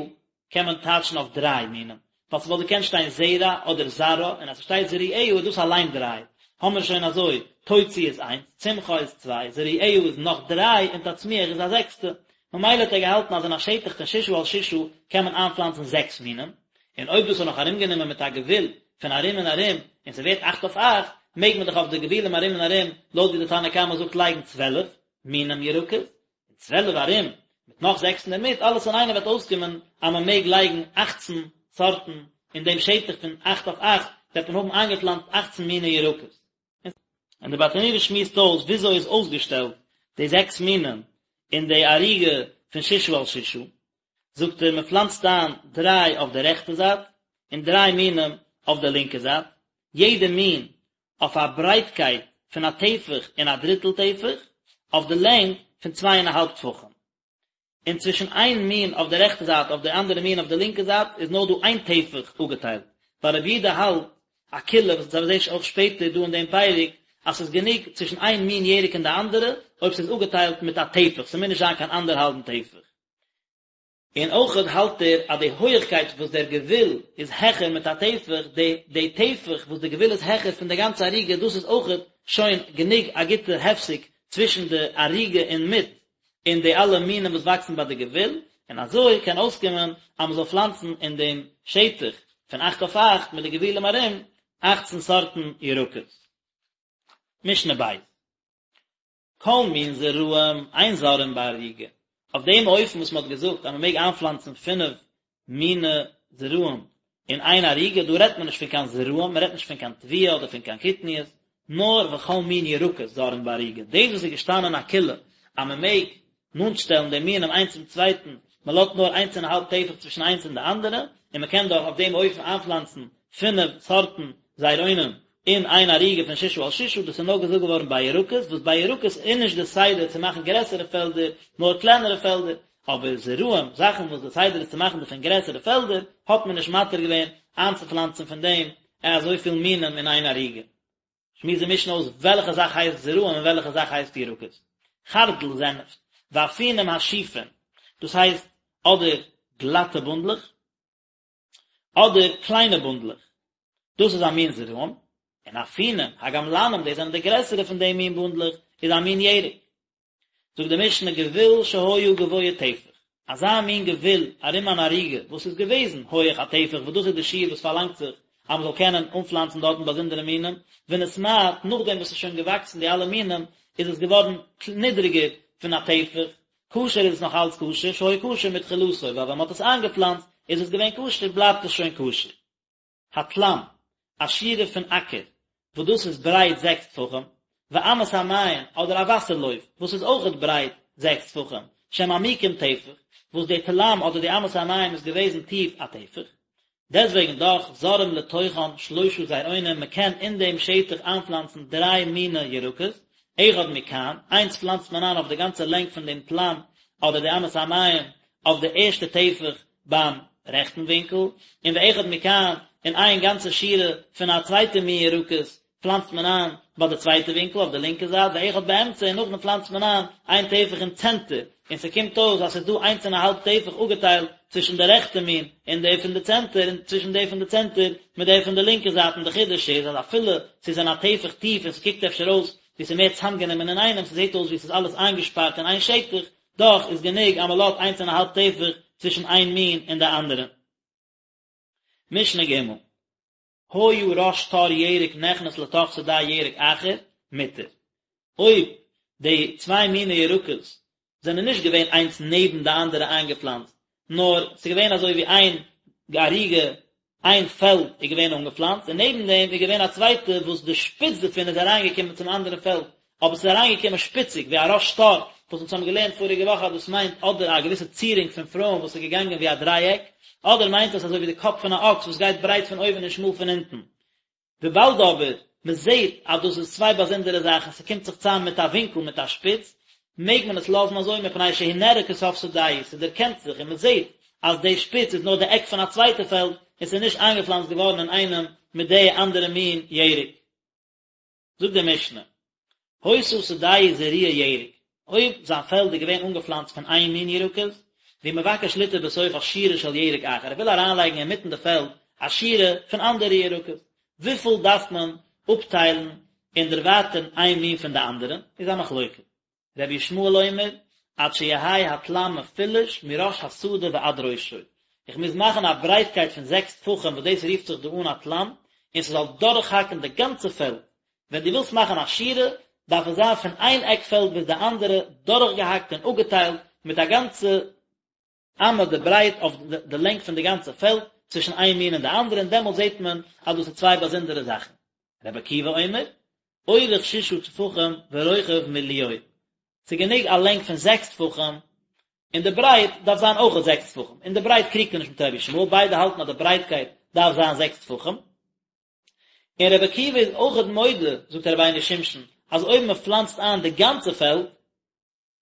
קען מען טייטשן אויף דריי מינים, ווייל ס'וואלט געקענט שטיין זרע אדער זרעה, און אז ס'שטייט זרועיה איז דאס אליין דריי, האמיר שוין אזוי, תוציא איז איינס, צמחה איז צוויי, זרועיה איז נאך דריי, און תצמיח איז א זעקסטע. ממילא האט ער געהאלטן אז אין א שטח פון ששה על ששה קען מען איינפלאנצן זעקס מינים, און אויב דאס איז נאך ארומגענומען מיט א גבול פון ארום און ארום, און ס'ווערט אכט אויף אכט, מעג מען דאך אויף די גבולים ארום און ארום, לויט ווי די תנא קמא זאגט לייגן 12 מינים ירקות, און 12 ארום, מיט נאך זעקס אינדערמיט, אלעס אינאיינעם וועט אויסקומען אז מען מעג לייגן אכצן סארטן אין דעם שטח פון אכט אויף אכט, וועט מען האבן איינגעפלאנצט אכצן מיני ירקות. און די ברטנורא שמועסט אויס וויאזוי איז אויסגעשטעלט די זעקס מינים אין די ערוגה פון ששה על ששה, זאגט ער מען פלאנצט איין דריי אויף די רעכטע זייט און דריי מינים אויף די לינקע זייט, יעדע מין אויף א ברייטקייט פון א טפח און א דריטל טפח, אויף די לענג פון צוויי און א האלב טפחים. און צווישן איין מין אויף די רעכטע זייט אויף די אנדערע מין אויף די לינקע זייט איז נאר דא איין טפח אפגעטיילט, ווייל רבי יהודה האלט א קולא וואס אונז זעהן אויך שפעטער דא אין דעם פרק אז ס'איז גענוג צווישן איין מין ירק און די אנדערע אויב ס'איז אפגעטיילט מיט א טפח, ס'מוז נישט זיין קיין אנדערהאלבן טפח. און אויכעט האלט ער אז די הויעכקייט וואס דער גבול איז העכער מיט א טפח, די די טפח וואס די גבול איז העכער פון די גאנצע ערוגה דאס איז אויכעט שוין גענוג א גוטע הפסק צווישן די ערוגה אין מיט און די אלע מינים וואס וואקסן ביי די גבול, און אזוי קען אויסקומען אז מען זאל פלאנצן אין דעם שטח פון אכט אויף אכט מיט די גבולים ארום אכצן סארטן ירקות. משנה ב'. כל מין זרעים אין זורעין בערוגה, אויף דעם אופן וואס מען האט געזאגט אז מען מעג איינפלאנצן פינף מיני זרעים אין איין ערוגה, דא רעדט מען נישט פון קיין זרעים, מען רעדט נישט פון קיין תבואה אדער פון קיין קטניות, נאר וכל מין ירקות זורעין בערוגה, דאס וואס איז געשטאנען א קולא אז מען מעג נאנט שטעלן די מינים איינס צום צווייטן, מען לאזט נאר איינס און א האלב טפח צווישן איינס און די אנדערע, און מען קען דאך אויף דעם אופן איינפלאנצן פינף סארטן זרעונים אין איין ערוגה פון ששה על ששה, דאס איז נאר געזאגט געווארן ביי ירקות, וואס ביי ירקות איז נישט די סדר צו מאכן גרעסערע פעלדער, נאר קלענערע פעלדער, אבער זרעים, זאכן וואס די סדר איז צו מאכן דערפון גרעסערע פעלדער, האט מען נישט מתיר געווען איינצופלאנצן פון דעם אזויפיל מינים אין איין ערוגה. שמועסט די משנה אויס וועלכע זאך הייסט זרעים און וועלכע זאך הייסט ירקות. חרדל זענעפט, ואפונים השופין, דאס הייסט אדער גלאטע בונדלעך, אדער קליינע בונדלעך, דאס איז א מין זרעים, און אפונים הגמלנים, דאס זענען די גרעסערע פון די מין בונדלעך, איז א מין ירק. זאגט די משנה גבול שהיה גבוה טפח, אזא מין גבול ארום אן ערוגה וואס איז געוועזן הויעך א טפח וואס דאס איז די שיעור וואס פארלאנגט זיך אז מען זאל קענען אנפלאנצן דארטן באזונדערע מינים, ונתמעט, נאכדעם וואס ס'איז שוין געוואקסן די אלע מינים איז עס געווארן נידריגער פון א טפח, כשר איז עס נאך אלץ כשר, שהיה כשר מתחילתו, ווייל ווען מען האט עס איינגעפלאנצט איז עס געווען כשר בלייבט עס שוין כשר. התלם, א שורה פון אקער, וואס דאס איז ברייט זעקס טפחים, ואמת המים, אדער א וואסער לויף, וואס איז אויכעט ברייט זעקס טפחים, שהם עמוקים טפח, וואס די תלם אדער די אמת המים איז געוועזן טיף א טפח, דעסוועגן דאך זורעים לתוכן שלושה זרעונים, מען קען אין דעם שטח איינפלאנצן דריי מיני ירקות, אחד מכאן, איינס פלאנצט מען איין אויף די גאנצע לענג פון דעם תלם אדער די אמת המים אויף די ערשטע טפח ביים רעכטן ווינקל, און ואחד מכאן, און איין גאנצע שורה פון א צווייטע מין ירקות פלאנצט מען איין ביי די צווייטע ווינקל אויף די לינקע זייט, ואחד באמצע, און נאכדעם פלאנצט מען איין איין טפח אין צענטער, און ס'קומט אויס אז ס'איז דא איינס און א האלב טפח אפגעטיילט צווישן די רעכטע מין און די פון די צענטער, און צווישן די פון די צענטער מיט די פון די לינקע זייט, און די חידוש איז אז אפילו ס'איז אין א טפח טיף און ס'קוקט אפשר אויס ווי ס'איז מער צאמגענומען אינאיינעם, ס'זעט אויס ווי ס'איז אלעס איינגעשפארט אין איין שטח, דאך איז גענוג אז מ'לאזט איינס און א האלב טפח צווישן איין מין און די אנדערע. משנה ג' היה ראש תור ירק נכנס לתוך שדה ירק אחר, מותר. אויב די צוויי מיני ירקות. זענען נישט געווען איינס נעבן די אנדערע איינגעפלאנצט, נאר ס'איז געווען אזוי ווי איין ערוגה, איין פעלד איז געווען אנגעפלאנצט, און נעבן דעם איז געווען א צווייטע וואס די שפיץ דערפון איז אריינגעקומען צום אנדערן פעלד, אבער ס'איז אריינגעקומען שפיציג, ווי א ראש שור, וואס אונז האבן געלערנט פאריגע וואך אז דאס מיינט אדער א געוויסע צירונג פון פרויען וואס איז געגאנגען ווי א דרייעק, אדער מיינט עס אזוי ווי די קאפ פון א אקס וואס גייט ברייט פון אויבן און שמאל פון אונטן. וויבאלד אבער מען זעט אז דאס איז צוויי באזונדערע זאכן, ס'קומט זיך צוזאם מיט א ווינקל מיט א שפיץ, מעג מען עס לאזן אזוי מפני שהוא נראה כסוף שדהו, ס'דערקענט זיך און מען זעט אז די שפיץ איז נאר די עק פון א צווייטע פעלד און ס'איז נישט איינגעפלאנצט געווארן אינאיינעם מיט די אנדערע מין ירק. זאגט די משנה, היתה שדהו זרועה ירק, אויב זיין פעלד איז געווען אנגעפלאנצט פון איין מין ירקות, והוא מבקש ליטע בתוכה שורה של ירק אחר, ער וויל אריינלייגן אינמיטן די פעלד א שורה פון אנדערע ירקות, וויפיל דארף מען אפטיילן און דערווייטערן איין מין פון די אנדערע, איז א מחלוקת. רבי ישמעאל אומר, עד שיהא התלם מפולש מראש השדה ועד ראשו, איך מוז מאכן א ברייטקייט פון זעקס טפחים וואס דאס רופט זיך דא אן א תלם, און ס'זאל דורכהאקן די גאנצע פעלד, ווען דו ווילסט מאכן א שורה, דארף עס זיין פון איין עק פעלד ביז די אנדערע, דורכגעהאקט און אפגעטיילט מיט א גאנצע אמה די ברייט אויף די לענג פון די גאנצע פעלד, צווישן איין מין און די אנדערע, און דעמאלט זעט מען אז דאס איז צוויי באזונדערע זאכן. רבי עקיבא אומר, אורך ששה טפחים ורוחב מלואו, ס'איז גענוג א לענג פון זעקס טפחים, און די ברייט דארף זיין אויכעט זעקס טפחים, אין די ברייט קריגט ער נישט מיט רבי ישמעאל, ביידע האלטן אז די ברייטקייט דארף זיין זעקס טפחים. און רבי עקיבא איז אויכעט מודה, זאגט רבינו שמשון, אז אויב מען פלאנצט איין די גאנצע פעלד,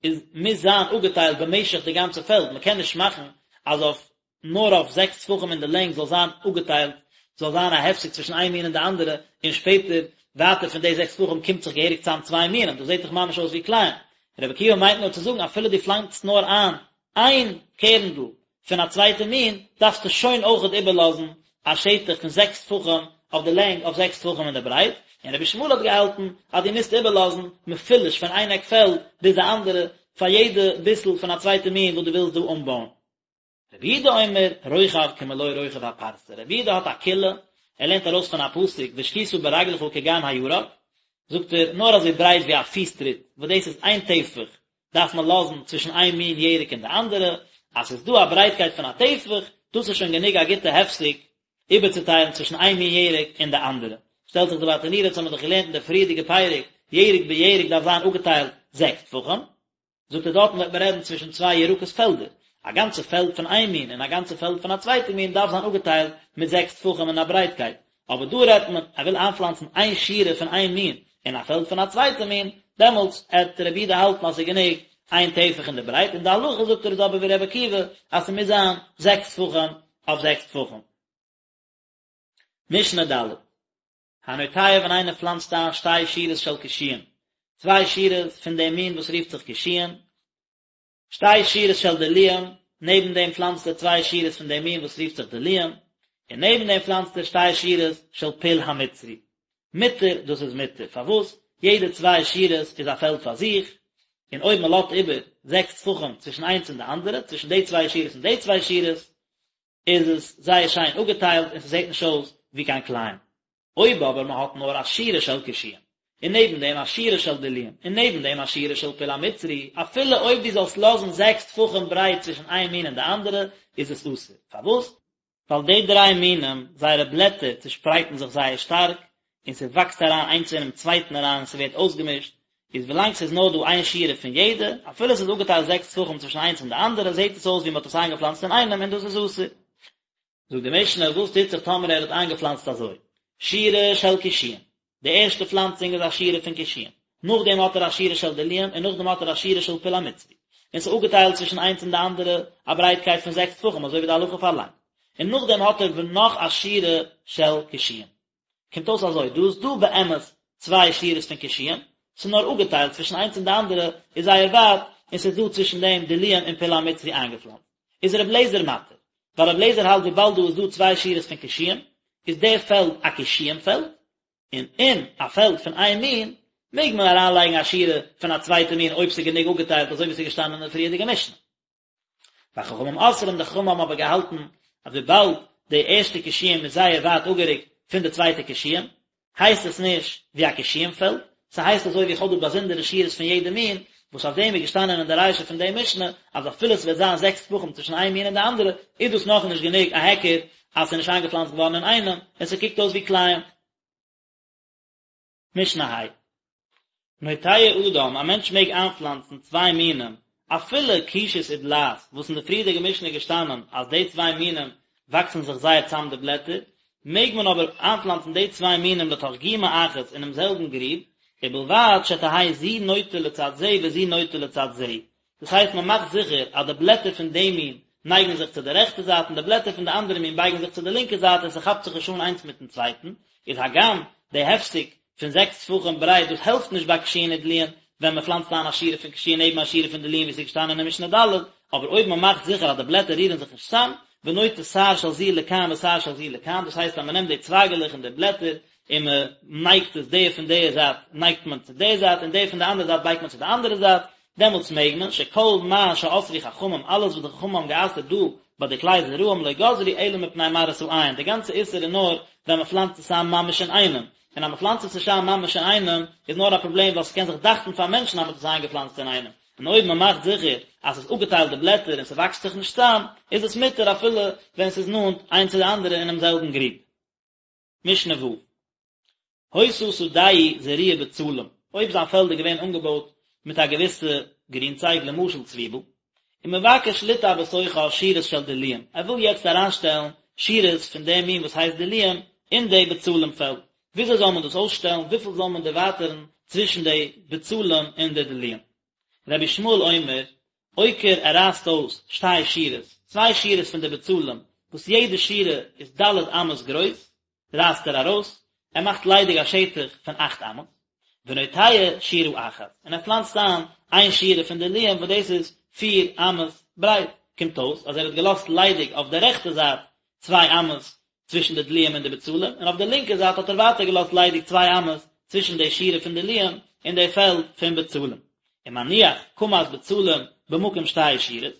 איז מוז זיין אפגעטיילט במשך די גאנצע פעלד, מען קען נישט מאכן אז אויף נאר אויף זעקס טפחים אין די לענג זאל זיין אפגעטיילט, זאל זיין א הפסק צווישן איין מין און די אנדערע, און שפעטער ווייטער פון די זעקס טפחים קומט זיך געהעריג צאם צוויי מינים, דאס זעט דאך ממש אויס ווי כלאים. רבי עקיבא מיינט נאר צו זאגן אפילו דו פלאנצט נאר איין איין קערנדל פון א צווייטע מין, דארפסטו שוין אויכעט איבערלאזן א שטח פון זעקס טפחים אויף די לענג אויף זעקס טפחים אין די ברייט, און רבי ישמעאל האט געהאלטן אז דו מוזט איבערלאזן מפולש פון איין עק פעלד ביז די אנדערע פאר יעדע ביסל פון א צווייטע מין וואס דו ווילסט דא אנבויען. רבי יהודה אומר, רוחב כמלוא רוחב הפרסה, רבי יהודה האט א קולא, ער לערנט ארויס פון א פסוק והשקית ברגלך כגן הירק, זאגט ער, נאר אזוי ברייט ווי א פיס טריט, וואס דאס איז איין טפח, דארף מען לאזן צווישן איין מין ירק און די אנדערע, אז ס'איז דא א ברייטקייט פון א טפח, דאס איז שוין גענוג א גוטע הפסק איבערצוטיילן צווישן איין מין ירק און די אנדערע. שטעלט זיך די ברטנורא, אונז האבן מיר דאך געלערנט אין די פריערדיגע פרק, ירק בירק דארף זיין אפגעטיילט זעקס טפחים, זאגט ער דארטן וועט מען רעדן צווישן צוויי ירקות פעלדער, א גאנצע פעלד פון איין מין און א גאנצע פעלד פון א צווייטע מין דארף זיין אפגעטיילט מיט זעקס טפחים אין א ברייטקייט, אבער דא רעדט מען ער וויל איינפלאנצן איין שורה פון איין מין אין א פעלד פון א צווייטע מין, דעמאלטס עט רבי יהודה האלטן אז ס'איז גענוג איין טפח אין די ברייט, און די הלכה זאגט ער איז אבער ווי רבי עקיבא אז ס'מוז זיין זעקס טפחים אויף זעקס טפחים. משנה ד'. הנוטע ווען איינער פלאנצט איין שתי שורות של קישואים, צוויי שורות פון דעם מין וואס רופט זיך קישואים, שתי שורות של דלועים, נעבן דעם פלאנצט ער צוויי שורות פון דעם מין וואס רופט זיך דלועים, און נעבן דעם פלאנצט ער שתי שורות של פול המצרי. מותר, דאס איז מותר. פארוואס? יעדע צוויי שורות איז א פעלד פאר זיך, און אויב מען לאזט איבער זעקס טפחים צווישן איינס און די אנדערע, צווישן די צוויי שורות און די צוויי שורות, איז עס זייער שיין אפגעטיילט און ס'זעט נישט אויס ווי קיין כלאים. אויב אבער מען האט נאר א שורה של קישואים, און נעבן דעם א שורה של דלועים, און נעבן דעם א שורה של פול המצרי, אפילו אויב דו זאלסט לאזן זעקס טפחים ברייט צווישן איין מין און די אנדערע, איז עס אסור. פארוואס? ווייל די דריי מינים, זייערע בלעטער צושפרייטן זיך זייער שטארק, און ס'וואקסט אריין איינס אינעם צווייטן אריין און ס'ווערט אויסגעמישט, איז ווילאנג ס'איז נאר דא איין שורה פון יעדע, אפילו ס'איז אפגעטיילט זעקס טפחים צווישן איינס און די אנדערע, זעט עס אויס ווי מ'האט עס איינגעפלאנצט אינאיינעם און דאס איז אסור. זאגט די משנה, וואס טוט זיך טאמער ער האט איינגעפלאנצט אזוי, שורה של קישואים, די ערשטע פלאנצונג איז א שורה פון קישואים, נאכדעם האט ער א שורה של דלועים און נאכדעם האט ער א שורה של פול המצרי, און ס'איז אפגעטיילט צווישן איינס און די אנדערע א ברייטקייט פון זעקס טפחים אזוי ווי די הלכה פארלאנגט, און נאכדעם האט ער נאך א שורה של קישואים. קומט אויס אזוי, דא איז דא באמת צוויי שורות פון קישואים, ס'איז נאר אפגעטיילט צווישן איינס און די אנדערע איז זייער ווייט, און ס'איז דא צווישן דעם דלועים און פול המצרי איינגעפלאנצט. איז ר' לעזער מתיר, ווייל ר' לעזער האלט וויבאלד דא איז דא צוויי שורות פון קישואים, איז דער פעלד א קישואים פעלד, און אין א פעלד פון איין מין מעג מען אריינלייגן א שורה פון א צווייטע מין אויב ס'איז גענוג אפגעטיילט אזוי ווי ס'איז געשטאנען אין די פריערדיגע משנה. וחכמים אוסרים, די חכמים האבן אבער געהאלטן אז וויבאלד די ערשטע קישואים איז זייער ווייט אפגערוקט פון די צווייטע קישואים, הייסט עס נישט ווי א קישואים פעלד, ס'הייסט אזוי ווי איך האב דא באזונדערע שורות פון יעדע מין, וואס אויף דעם איז געשטאנען אין די רישא פון די משנה, אז אפילו ס'וועט זיין זעקס טפחים צווישן איין מין און די אנדערע, איז דאס נאכנישט גענוג א היכר אז ס'איז נישט איינגעפלאנצט געווארן אינאיינעם, און ס'קוקט אויס ווי כלאים. משנה ה'. נוטע אדם, א מענטש מעג איינפלאנצן צוויי מינים, אפילו קישות ודלעת, וואס אין די פריערדיגע משנה איז געשטאנען אז די צוויי מינים וואקסן זיך זייער צאם די בלעטער, מעג מען אבער איינפלאנצן די צוויי מינים לתוך גומא אחת אינעם זעלבן גריב, ובלבד שתהא זו נוטה לצד זה וזו נוטה לצד זה, דאס הייסט מען מאכט זיכער אז די בלעטער פון די מין נייגן זיך צו די רעכטע זייט און די בלעטער פון די אנדערע מין בייגן זיך צו די לינקע זייט און ס'כאפט זיך נישט אן איינס מיטן צווייטן, איז הגם די הפסק פון זעקס טפחים ברייט דאס העלפט נישט ביי קישואין ודלועין ווען מען פלאנצט איין א שורה פון קישואין נעבן א שורה פון דלועין ווי ס'איז געשטאנען אין משנה ד', אבער אויב מען מאכט זיכער אז די בלעטער רירן זיך נישט צאם, ונוטה שער של זו לכאן ושער של זו לכאן, דאס הייסט אז מען נעמט די צווייגעלעך און די בלעטער און מען נייגט עס די פון די זייט נייגט מען צו די זייט און די פון די אנדערע זייט בייגט מען צו די אנדערע זייט, דעמאלטס מעג מען, שכל מה שאסרו חכמים, אלעס וואס די חכמים האבן גע'אסר'ט דא ביי די כלי זרעים לא גזרו אלא מפני מראית העין, די גאנצע איסור איז נאר ווען מען פלאנצט עס איין ממש אינאיינעם, און אז מען פלאנצט עס נישט איין ממש אינאיינעם איז נאר א פראבלעם ווייל ס'קען זיך דאכטן פאר מענטשן אז מען האט עס איינגעפלאנצט אינאיינעם, און אויב מען מאכט זיכער אז ס'איז אפגעטיילט די בלעטער און ס'וואקסט זיך נישט צאם, איז עס מותר אפילו ווען ס'איז נאנט איינס צו די אנדערע אינעם זעלבן גריב. משנה ו'. היתה שדהו זרועה בצלים, אויב זיין פעלד איז געווען אנגעבויט מיט א געוויסע גרינצייג למשל צוויבל, ומבקש ליטע בתוכה שורות של דלועים, ער וויל יעצט אריינשטעלן שורות פון דעם מין וואס הייסט דלועים אין די בצלים פעלד, וויאזוי זאל מען דאס אויסשטעלן, וויפיל זאל מען דערווייטערן צווישן די בצלים און די דלועים? רבי ישמעאל אומר, עוקר ער רייסט אויס שתי שורות, צוויי שורות פון די בצלים, וואס יעדע שורה איז ד' אמות גרויס, רייסט ער ארויס, ער מאכט ליידיג א שטח פון אכט אמות, ונוטע שורה אחת, און ער פלאנצט איין איין שורה פון דלועים וואס דאס איז פיר אמות ברייט, קומט אויס אז ער האט געלאזט ליידיג אויף די רעכטע זייט צוויי אמות צווישן די דלועים און די בצלים, און אויף די לינקע זייט האט ער ווייטער געלאזט ליידיג צוויי אמות צווישן די שורה פון דלועים און די פעלד פון בצלים. ומניח קמת בצלים במקום שתי שורות,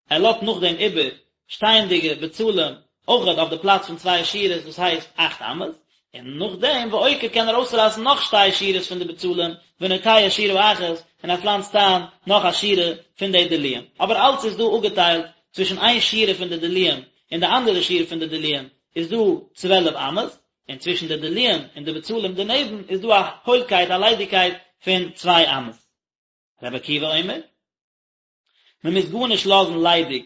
ער לאזט נאכדעם איבער שטייענדיגע בצלים אויכעט אויף די פלאץ פון צוויי שורות דאס הייסט אכט אמות, און נאכדעם ועוקר קען ער אויסרייסן נאך שתי שורות פון די בצלים ונוטע שורה אחת און ער פלאנצט איין נאך א שורה פון די דלועים, אבער אלץ איז דא אפגעטיילט צווישן איין שורה פון די דלועים און די אנדערע שורה פון די דלועים איז דא צוועלף אמות, און צווישן די דלועים און די בצלים דערנעבן איז דא א הוילקייט א ליידיגקייט פון צוויי אמות. רבי עקיבא אומר. מען מוז גארנישט לאזן ליידיג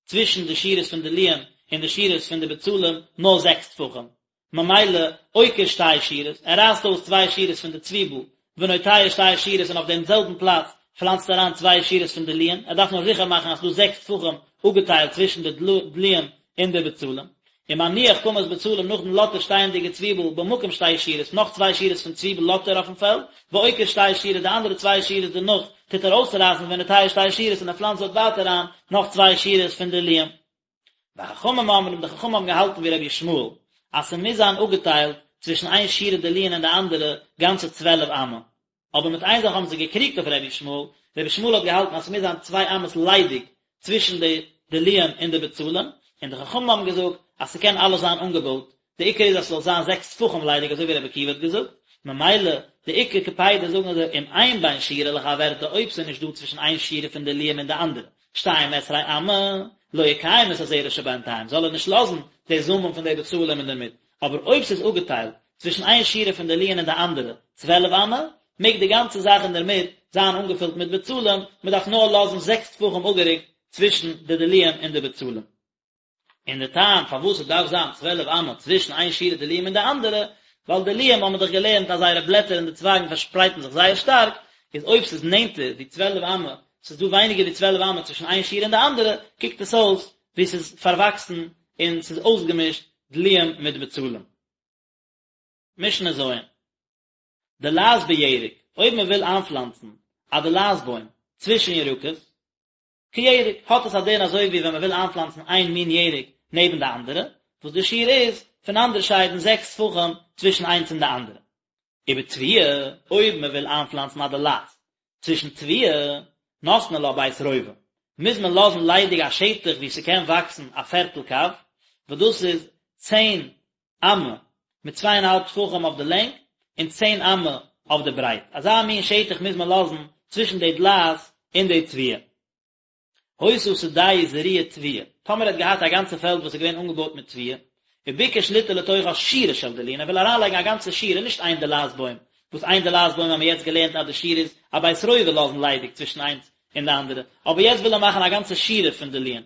צווישן די שורות פון דלועים און די שורות פון די בצלים נאר זעקס טפחים, ממילא עוקר שתי שורות, ער רייסט אויס צוויי שורות פון די צוויבל, ונוטע שתי שורות און אויף דעם זעלבן פלאץ פלאנצט ער אריין צוויי שורות פון דלועים, ער דארף נאר זיכער מאכן אז ס'איז דא זעקס טפחים אפגעטיילט צווישן די דלועים און די בצלים. ומניח קמת בצלים נאכדעם לאזט ער שטייענדיגע צוויבל במקום שתי שורות נאך צוויי שורות פון צוויבל לאזט ער אויפן פעלד, ועוקר שתי שורות די אנדערע צוויי שורות דערנאך טוט ער אויסרייסן ונוטע שתי שורות און ער פלאנצט דארט ווייטער אריין נאך צוויי שורות פון דלועים. וחכמים אומרים די חכמים האבן געהאלטן ווי רבי ישמעאל אז ס'מוז זיין אפגעטיילט צווישן איין שורה דלועין און די אנדערע גאנצע צוועלף אמה, אבער מיט איין זאך האבן זיי געקריגט אויף רבי ישמעאל, רבי ישמעאל האט געהאלטן אז ס'מוז זיין צוויי אמות ליידיג צווישן די דלועין און די בצלים, און די חכמים האבן געזאגט אז ס'קען אלעס זיין אנגעבויט, די עיקר איז אז ס'זאל זיין זעקס טפחים ליידיג אזוי ווי רבי עקיבא האט געזאגט, ממילא די עיקר קפידא זאגן זיי אם אין בין שורה לחברתה אויב ס'איז נישט דא צווישן איין שורה פון דלועים און די אנדערע שתים עשרה אמה, לא יקיים את הזרע שבינתיים זאל ער נישט לאזן די זאמען פון די בצלים אינדערמיט, אבער אויב ס'איז אפגעטיילט צווישן איין שורה פון דלועין און די אנדערע, צוועלף אמה, מעג די גאנצע זאך אינדערמיט זיין אנגעפילט מיט בצלים, מען דארף נאר לאזן זעקס טפחים אפגערוקט צווישן די דלועין און די בצלים. און די טעם פארוואס עס דארף זיין צוועלף אמה צווישן איין שורה דלועים און די אנדערע, ווייל דלועים האבן מיר דאך געלערנט אז זייערע בלעטער און די צווייגן פארשפרייטן זיך זייער שטארק, איז אויב ס'איז נענטער ווי צוועלף אמה, ס'איז דא ווייניגער ווי צוועלף אמה צווישן איין שורה און די אנדערע, קוקט עס אויס ווי ס'איז פארוואקסן און ס'איז אויסגעמישט דלועים מיט בצלים. משנה ז'. דלעת בירק, אויב מען וויל איינפלאנצן א דלעת בוים צווישן ירקות, כירק, האט עס א דין אזוי ווי ווען מען וויל איינפלאנצן איין מין ירק נעבן די אנדערע, וואס די שיעור איז פונאנדערשיידן זעקס טפחים צווישן איינס און די אנדערע. ובתבואה, אויב מען וויל איינפלאנצן א דלעת צווישן תבואה, נותנין לה בית רובע, מוז מען לאזן ליידיג א שטח וואו ס'קען וואקסן א פערטל קב, וואס דאס איז צען אמה מיט צוויי און א האלב טפחים אויף די לענג, און צען אמה אויף די ברייט, אזא מין שטח מוז מען לאזן צווישן די דלעת און די תבואה. היתה שדהו זרועה תבואה, טאמער ער האט געהאט א גאנצע פעלד וואס איז געווען אנגעבויט מיט תבואה, וביקש ליטע לתוכה שורה של דלועין, ער וויל אריינלייגן א גאנצע שורה, נישט איין דלעת בוים, וואס איין דלעת בוים האבן מיר יעצט געלערנט אז די שיעור איז א בית רובע לאזן ליידיג צווישן איינס און די אנדערע, אבער יעצט וויל ער מאכן א גאנצע שורה פון דלועין.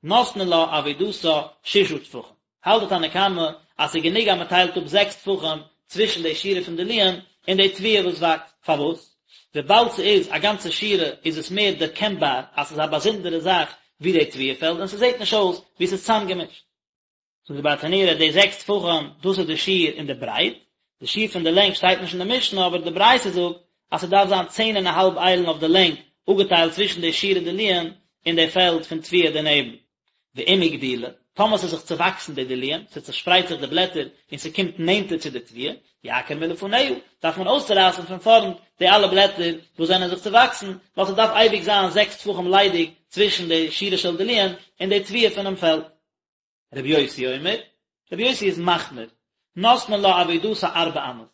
נותנין לה עבודתה ששה טפחים. האלט די תנא קמא אז ס'איז גענוג אז מ'טיילט אפ זעקס טפחים צווישן די שורה פון דלועין און די תבואה וואס וואקסט. פארוואס? וויבאלד ס'איז א גאנצע שורה איז עס מער דערקענבאר אז ס'איז א באזונדערע זאך ווי די תבואה פעלד און ס'זעט נישט אויס ווי ס'איז צאמגעמישט. זאגט די ברטנורא די זעקס טפחים דאס איז די שיעור אין די ברייט, די שיעור פון די לענג שטייט נישט אין די משנה אבער די ברייתא זאגט אז ס'דארף זיין צען און א האלב איילן אויף די לענג אפגעטיילט צווישן די שורה דלועין און די פעלד פון תבואה דערנעבן. ואם הגדילה, טאמער ס'איז זיך צעוואקסן די דלועין, ס'צעשפרייט זיך די בלעטער און ס'קומט נענטער צו די תבואה, יעקור מלפניה, דארף מען אויסצורייסן פון פארנט די אלע בלעטער וואס זענען זיך צעוואקסן, ווייל ס'דארף אייביג זיין זעקס טפחים ליידיג צווישן די שורה של דלועין און די תבואה פונעם פעלד. רבי יוסי אומר, רבי יוסי איז מחמיר, נותנין לה עבודתה ארבע אמות,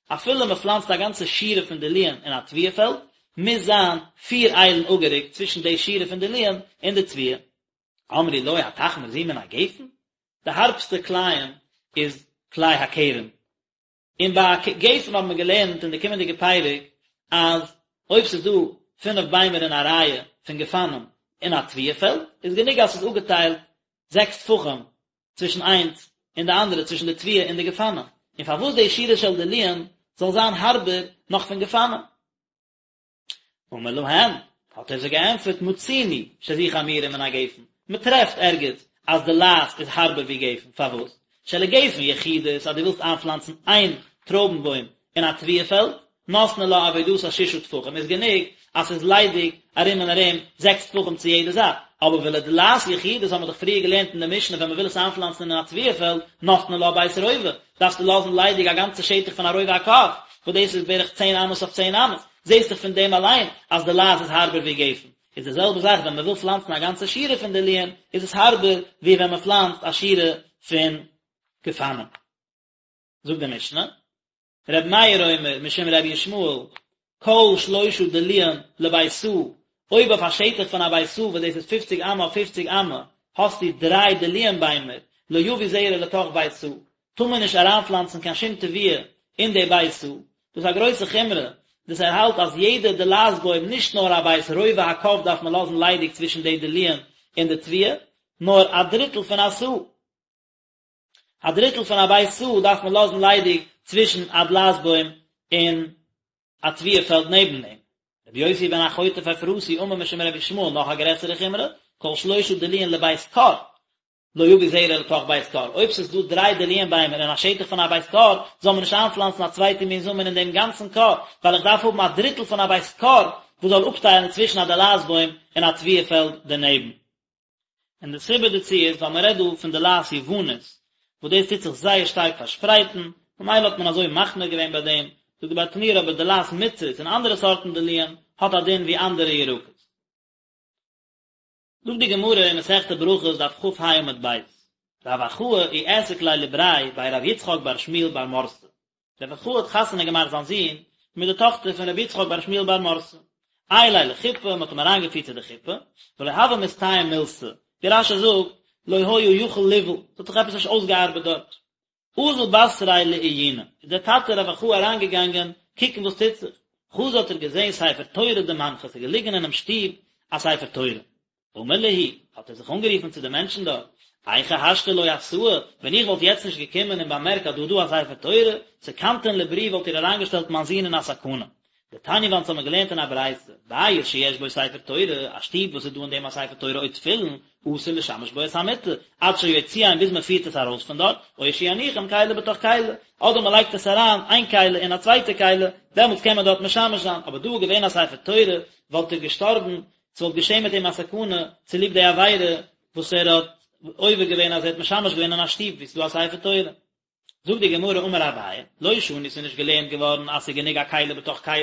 אפילו מען פלאנצט א גאנצע שורה פון דלועין אין א תבואה פעלד, מוז זיין פיר איילן אפגערוקט צווישן די שורה פון דלועין און די תבואה. אמרו לו התחמיר זו מן הגפן? די הארבסטע כלאים איז כלאי הכרם, און ביי גפן האבן מיר געלערנט אין די קומענדיגע פרק אז אויב ס'איז דא פינף ביימער אין א רייע פון גפנים אין א תבואה פעלד איז גענוג אז ס'איז אפגעטיילט זעקס טפחים צווישן איינס און די אנדערע צווישן די תבואה און די גפנים, און פארוואס די שורה של דלועין זאל זיין הארבער נאך פון גפנים? אמר להם, האט ער זיי געענטפערט, מצינו שזו חמורה מן הגפן, מען טרעפט ערגעץ אז דלעת איז הארבער ווי גפן, פארוואס? שלגפן יחידית, אז דו ווילסט איינפלאנצן איין טרויבן בוים אין א תבואה פעלד, נותנין לה עבודתה ששה טפחים, איז גענוג אז ס'איז ליידיג ארום און ארום זעקס טפחים צו יעדע זייט, אבער ולדלעת יחידית האבן מיר דאך פריער געלערנט אין די משנה ווען מען וויל עס איינפלאנצן אין א תבואה פעלד, נותנין לה בית רובע, דארפסטו לאזן ליידיג א גאנצע שטח פון א רובע הקב, וואס דאס איז בערך צען אמות אויף צען אמות, זעסט דאך פון דעם אליין אז דלעת איז הארבער ווי גפן, איז די זעלבע זאך ווען מען וויל פלאנצן א גאנצע שורה פון דלועין, איז עס הארבער ווי ווען מען פלאנצט א שורה פון גפנים. זאגט די משנה, ר' מאיר אומר משום ר' ישמעאל, כל שלושה דלועין לבית סאה, אויב אויף א שטח פון א בית סאה וואס דאס איז פופציג אמה אויף פופציג אמה, האסטו דריי דלועין ביימער, לא יביא זרע לתוך בית סאה, טאר מען נישט אריינפלאנצן קיין שום תבואה אין די בית סאה, דאס איז א גרויסע חומרא, דאס ער האלט אז יעדע דלעת בוים נישט נאר א בית רובע הקב דארף מען לאזן ליידיג צווישן די דלועין און די תבואה, נאר א דריטל פון א סאה. א דריטל פון א בית סאה דארף מען לאזן ליידיג צווישן א דלעת בוים און א תבואה פעלד נעבן דעם. רבי יוסי בן החוטף אפרתי אמר משום רבי ישמעאל נאך א גרעסערע חומרא, כל שלושה דלועין לבית כור, לא יביא זרע לתוך בית כור, אויב ס'איז דא דריי דלועין ביימער אין א שטח פון א בית כור, זאל מען נישט איינפלאנצן א צווייטע מין זאמען אין דעם גאנצן כור, ווייל איך דארף האבן א דריטל פון א בית כור וואס זאל אפטיילן צווישן א דלעת בוים און א תבואה פעלד דערנעבן. און די סיבה דערצו איז ווייל מען רעדט דא פון דלעת יוונית, וואס דאס טוט זיך זייער שטארק פארשפרייטן, ממילא האט מען אזוי מחמיר געווען ביי דעם, זאגט די ברטנורא אבער דלעת מצרית און אנדערע סארטן דלועין האט א דין ווי אנדערע ירקות. זאגט די גמרא אין מסכת ברכות דף כ"ה עמוד ב', רב אחאי איעסק ליה לבריה בי רב יצחק בר שמואל בר מרתא, רב אחאי האט חתונה געמאכט זיין זון מיט די טאכטער פון רבי יצחק בר שמואל בר מרתא. עייליה לחופה, מען האט אים אריינגעפירט צו די חופה, ולא הוה מסתייע מילתא, ווי רש"י זאגט, לא היה יכול לבעול, ס'האט זיך עפעס נישט אויסגעארבעט דארט. אזל בתריה לעיוני, איז דער טאטע רב אחאי אריינגעגאנגען קוקן וואס טוט זיך, חזא האט ער געזען ספר תורה דמנחא, ס'איז געליגן אינעם שטוב א ספר תורה. אמר להו, האט ער זיך אנגערופן צו די מענטשן דארט, היכי השתא לא אתאי, ווען איך וואלט יעצט נישט געקומען און באמערקט אז דא איז דא א ספר תורה, סכנתון לברי וואלט איר אריינגעשטעלט מיין זון אין א סכנה. דתניא וואס אונז האבן געלערנט אין א ברייתא, בית שיש בו ספר תורה, א שטוב וואס איז דא אין דעם א ספר תורה או תפילין, אסור לשמש בו את המיטה, עד שיוציאם ביז מען פירט עס ארויס פון דארט, או שיניחם כלי בתוך כלי, אדער מען לייגט עס אריין איין כלי אין א צווייטע כלי, דעמאלטס קען מען דארט משמש זיין, אבער דא איז געווען א ספר תורה, וואלט ער געשטארבן, ס'וואלט געשען מיט אים א סכנה צוליב די עבירה וואס ער האט עובר געווען אז ער האט משמש געווען אין א שטוב וואו ס'איז דא א ספר תורה. זאגט די גמרא אמר אביי, לא שנו ס'איז נישט געלערנט געווארן אז ס'איז גענוג א כלי בתוך כלי,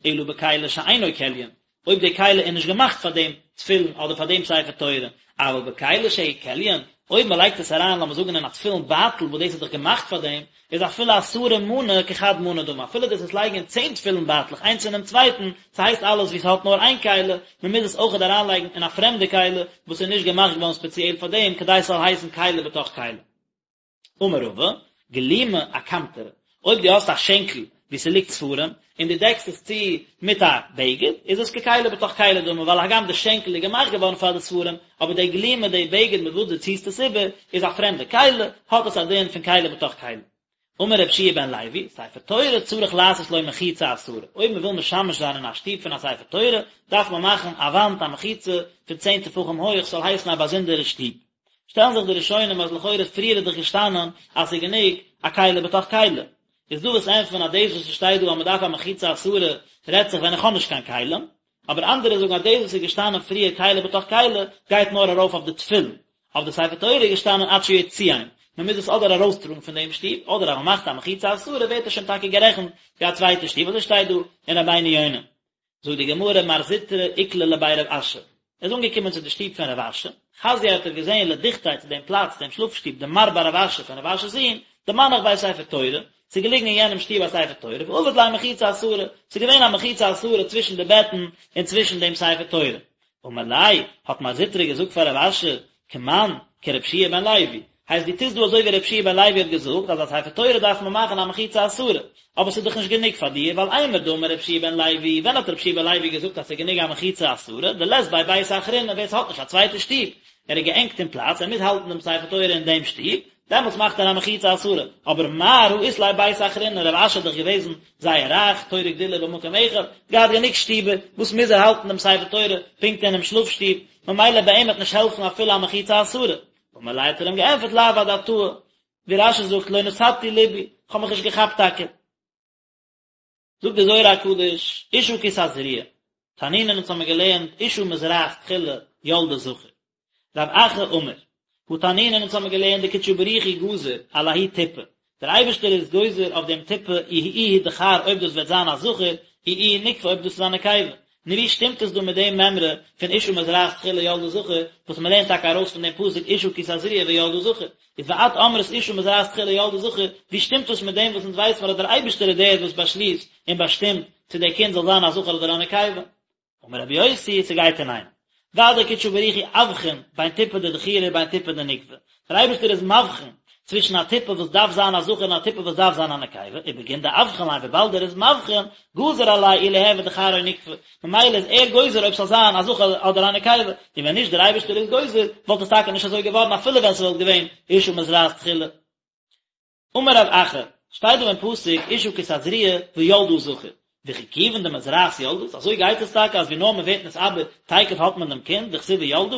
אלא בכלי שאינו כליין, אויב די כלי איז נישט געמאכט פאר דעם תפילין אדער פאר דעם ספר תורה, אבל בכלי שהוא כליין, אויב מען לייגט עס אריין לאמיר זאגן אין א תפילין בייטל וואס דאס איז דאך געמאכט פאר דעם, איז אפילו עשרה מני כחד מנא דמי, אפילו דאס עס לייגן אין צען תפילין בייטלעך איינס אינעם צווייטן, ס'הייסט אלעס ווי ס'האט נאר איין כלי, מען מוז עס אויכעט אריינלייגן אין א פרעמדע כלי וואס איז נישט געמאכט געווארן ספעציעל פאר דעם כדי ס'זאל הייסן כלי בתוך כלי. אמר רבא, גלימא אקמטרא, אויב דו האסט א שענקל וואו ס'ליגט ספרים, און דו דעקסט עס צו מיט א בגד, איז עס ככלי בתוך כלי דמי, ווייל הגם די שענקל איז געמאכט געווארן פאר די ספרים, אבער די גלימא, די בגד מיט וואס דו ציסט עס איבער, איז א פרעמדע כלי, האט עס א דין פון כלי בתוך כלי. אמר רבי יהושע בן לוי, ספר תורה צריך לעשות לו מחיצה עשרה, אויב מען וויל משמש זיין אין א שטוב פון א ספר תורה, דארף מען מאכן א וואנט א מחיצה פון צען טפחים הויך, ס'זאל הייסן א באזונדערע שטוב. שטעלן זיך די ראשונים אז לכאורה פריער איז דאך געשטאנען אז ס'איז גענוג א כלי בתוך כלי. איז דא וואס ענטפערן אז דאס וואס ס'שטייט דא אז מ'דארף א מחיצה עשרה רעדט זיך ווען איך האב נישט קיין כלים, אבער אנדערע זאגן אז דאס וואס איז געשטאנען פריער כלי בתוך כלי גייט נאר ארויף אויף די תפילין, אויף די ספר תורה איז געשטאנען עד שיוציאם, מ'מוז עס אדער ארויסטראגן פון דעם שטוב, אדער אז מ'מאכט א מחיצה עשרה ווערט עס שוין טאקע גערעכנט ווי א צווייטע שטוב, אזוי שטייט דא אין רבינו יונה. זאגט די גמרא מר זוטרא איקלע לבי רב אשי, ער איז אנגעקומען צו די שטוב פון רב אשי, חזייה האט ער געזען לדוכתיה צו דעם פלאץ דעם שלאף שטוב דמר בר רב אשי פון רב אשי'ס זון, דמנח ביה ספר תורה, ס'איז געליגן אין יענעם שטוב א ספר תורה, ועביד ליה מחיצה עשרה, ס'איז געווען א מחיצה עשרה צווישן די בעטן און צווישן דעם ספר תורה. אמר ליה, האט מר זוטרא געזאגט פאר רב אשי, כמאן, כרבי יהושע בן לוי, הייסט דו טוסט דא אזוי ווי רבי יהושע בן לוי האט געזאגט אז א ספר תורה דארף מען מאכן א מחיצה עשרה, אבער ס'איז דאך נישט גענוג פאר דיר, ווייל אימר דאמר רבי יהושע בן לוי, ווען האט רבי יהושע בן לוי געזאגט אז ס'איז גענוג א מחיצה עשרה, דלית ביה ביתא אחרינא, ווער ס'האט נישט א צווייטע שטוב, ער איז געענגט אין פלאץ, ער מוז האלטן דעם ספר תורה אין דעם שטוב, דעמאלטס מאכט ער א מחיצה עשרה, אבער מר הא אית ליה ביתא אחרינא, רב אשי איז דאך געוועזן זייער רייך, תורה וגדולה במקום אחד, געהאט גענוג שטיבער, וואס מוז ער האלטן דעם ספר תורה פונקט אינעם שלאף שטוב, ממילא ביי אים וועט נישט העלפן אפילו א מחיצה עשרה. אמר ליה האט ער אים געענטפערט לאו אדעתאי, ווי רש"י זאגט לא נתתי לבי, כ'האב מיך נישט געכאפט טאקע. זאגט די זוהר הקדוש, אשה כי תזריע, תנינן אונז האמיר געלערנט אשה מזרעת תחילה ילדה זכר. רב אחא אמר, הא תנינן אונז האמיר געלערנט דקודשא בריך הוא גזר על ההיא טיפא, דער אייבערשטער איז גוזר אויף דעם טיפה אי איהו דכר אויב דאס וועט זיין א זכר, אי איהי נוקבא אויב דאס איז א נקבה. נו ווי שטימט עס דא מיט דעם מימרא פון אשה מזרעת תחילה ילדה זכר, וואס מען לערנט טאקע ארויס פון דעם פסוק אשה כי תזריע וילדה זכר, איז ואת אמרת אשה מזרעת תחילה ילדה זכר, ווי שטימט דאס מיט דעם וואס אונז ווייסן מיר אז דער אייבערשטער איז דער וואס באשליסט און באשטימט צו דער קינד זאל זיין א זכר אדער א נקבה? אמר רבי יוסי, ס'גייט אינאיינעם. ודאי קודשא בריך הוא אבחין בין טיפא דדכירא ובין טיפא דנוקבא. דער אייבערשטער איז מבחין צווישן א טיפה וואס דארף זיין א זכר און א טיפה וואס דארף זיין א נקבה, ובגין דאבחין ליה וויבאלד ער איז מבחין, גזר עליה אי ליהוי דכר או נוקבא, ממילא איז ער גוזר אויב ס'זאל זיין א זכר אדער א נקבה, און ווען נישט דער אייבערשטער איז גוזר, וואלט עס טאקע נישט אזוי געווארן אפילו ווען ס'וואלט געווען אשה מזרעת תחילה. אמר רב אחא, שטייט דא אין פסוק אשה כי תזריע וילדה זכר, וכי כיוון דמזרעת ילדת, אזוי גייט עס טאקע אז ווי נאר מען ווערט נתעבר תיכף האט מען דעם קינד, דכתיב וילדה?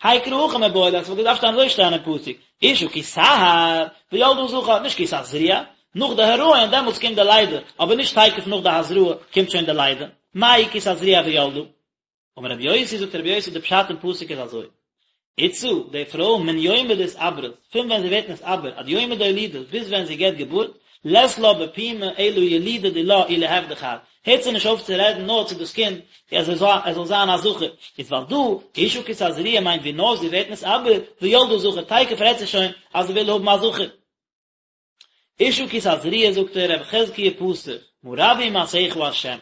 האי קרא הכי מיבעי ליה, עס וואלט געדארפט שטיין אזוי שטיין אין פסוק, אשה כי תהר וילדה זכר, נישט כי תזריע, נאך די הריון דעמאלטס קומט די לידה, אבער נישט תיכף נאך די הזרעה קומט שוין די לידה, מאי כי תזריע וילדה? אמר רבי יוסי זאגט רבי יוסי די פשט אין פסוק איז אזוי, איתתא, די פרוי מן יומא דאתעברת, פון ווען זי ווערט נתעבר עד יומא דאולידת ביז ווען זי געבט געבורט, לית לה בפומה אלא ילודה דילה אי ליהוי דכר, הערט זי נישט אויף צו רעדן נאר צו דאס קינד אז ער זאל זיין א זכר, איז ווייל דא, אשה כי תזריע מיינט ווי נאר זי ווערט נתעבר, וילדה זכר, תיכף רעדט זי שוין אז זי וויל האבן א זכר. אשה כי תזריע זאגט ער רבי חזקיה פתח מה רבו מעשיך ה'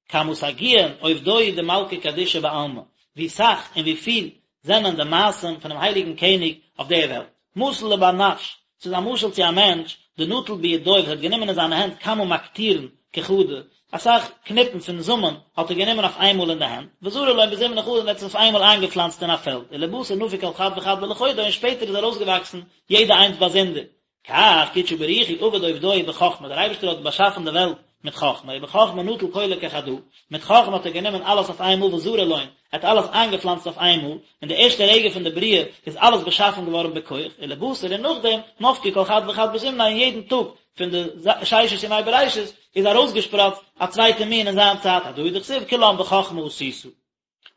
כמה סגיאין עובדוי דמלכא קדישא בעלמא ווי סאך און ווי פיל זענען די מעשים פונעם הייליגן קעניג אויף דער וועלט מתיל לבר נש ס'איז א משל צו א מענטש דנטל בידוי וואס האט גענומען אין זיינע הענט כמה מקטירין כחדא אסאך קניפן פון זאמען האט ער גענומען אויף איינמאל אין די הענט וזרע לון בזימנא חדא און האט עס אויף איינמאל איינגעפלאנצט אין א פעלד ולבתר נפיק כל חד וחד בלחודוי און שפעטער איז ארויסגעוואקסן יעדע איינס באזונדער כך קודשא בריך הוא עביד עובדוי בחכמה, דער אייבערשטער האט באשאפן די וועלט מיט חכמה, ובחכמה נטל כולא כחדא, מיט חכמה האט ער גענומען אלעס אויף איינמאל וזרע לון, ער האט אלעס איינגעפלאנצט אויף איינמאל, אין די ערשטע רגע פון די בריאה איז אלעס באשאפן געווארן בכח, ולבתר און נאכדעם, נפקו כל חד וחד בזמניה אין יעדן טאג פון די ששת ימי בראשית איז ארויסגעשפראצט א צווייטע מין אין זיין צייט, הדא הוא דכתיב כולם בחכמה עשית.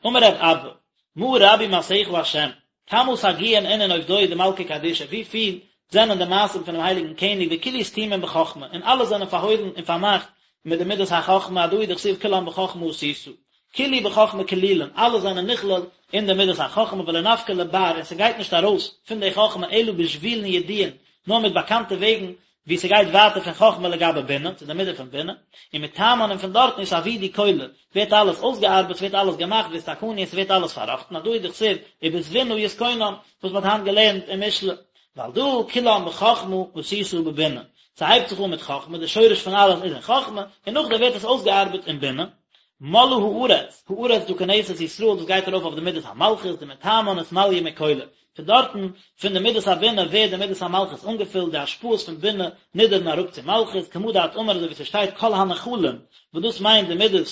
אמר רב אבא, מה רבו מעשיך ה', כמה סגיאין אינון עובדוי דמלכא קדישא, ווי פיל זענען די מעשים פונעם הייליגן קעניג וכולהו סתימין בחכמה, און אלע זענען פארהוילן און פארמאכט מיט די מידת החכמה, הדא הוא דכתיב כולם בחכמה עשית. כולהו בחכמה כלילין, אלע זענען נכלל אין די מידת החכמה ולא נפקי לבר און ס'גייט נישט ארויס פון די חכמה אלא בשבילין ידיעין, נאר מיט באקאנטע וועגן ווי ס'גייט ווייטער פון חכמה לגבי בינה, צו די מידה פון בינה, ומתמן און פון דארטן אתעבידו כולא, ווערט אלעס אויסגעארבעט, ס'ווערט אלעס געמאכט, ואתתקנו און ס'ווערט אלעס פארראכטן, הדא הוא דכתיב, ובתבונה יתכונן, וואס מ'האט היינט געלערנט אין משלי. ועל דא כולם בחכמה עשית בבינה, ס'הייבט זיך אן מיט חכמה, די שורש פון אלעס איז אין חכמה, און נאכדעם ווערט עס אויסגעארבעט אין בינה. מלאה הארץ, הארץ דא כנסת ישראל, דאס גייט ארויף אויף די מידת המלכות, דמתמן אתמליא מכולא, פון דארטן, פון די מידת הבינה ווערט די מידת המלכות אנגעפילט, די השפעות פון בינה נידערן אראפ צו מלכות, כמה דאת אמר אזוי ווי ס'שטייט כל הנחלים, וואס דאס מיינט די מידת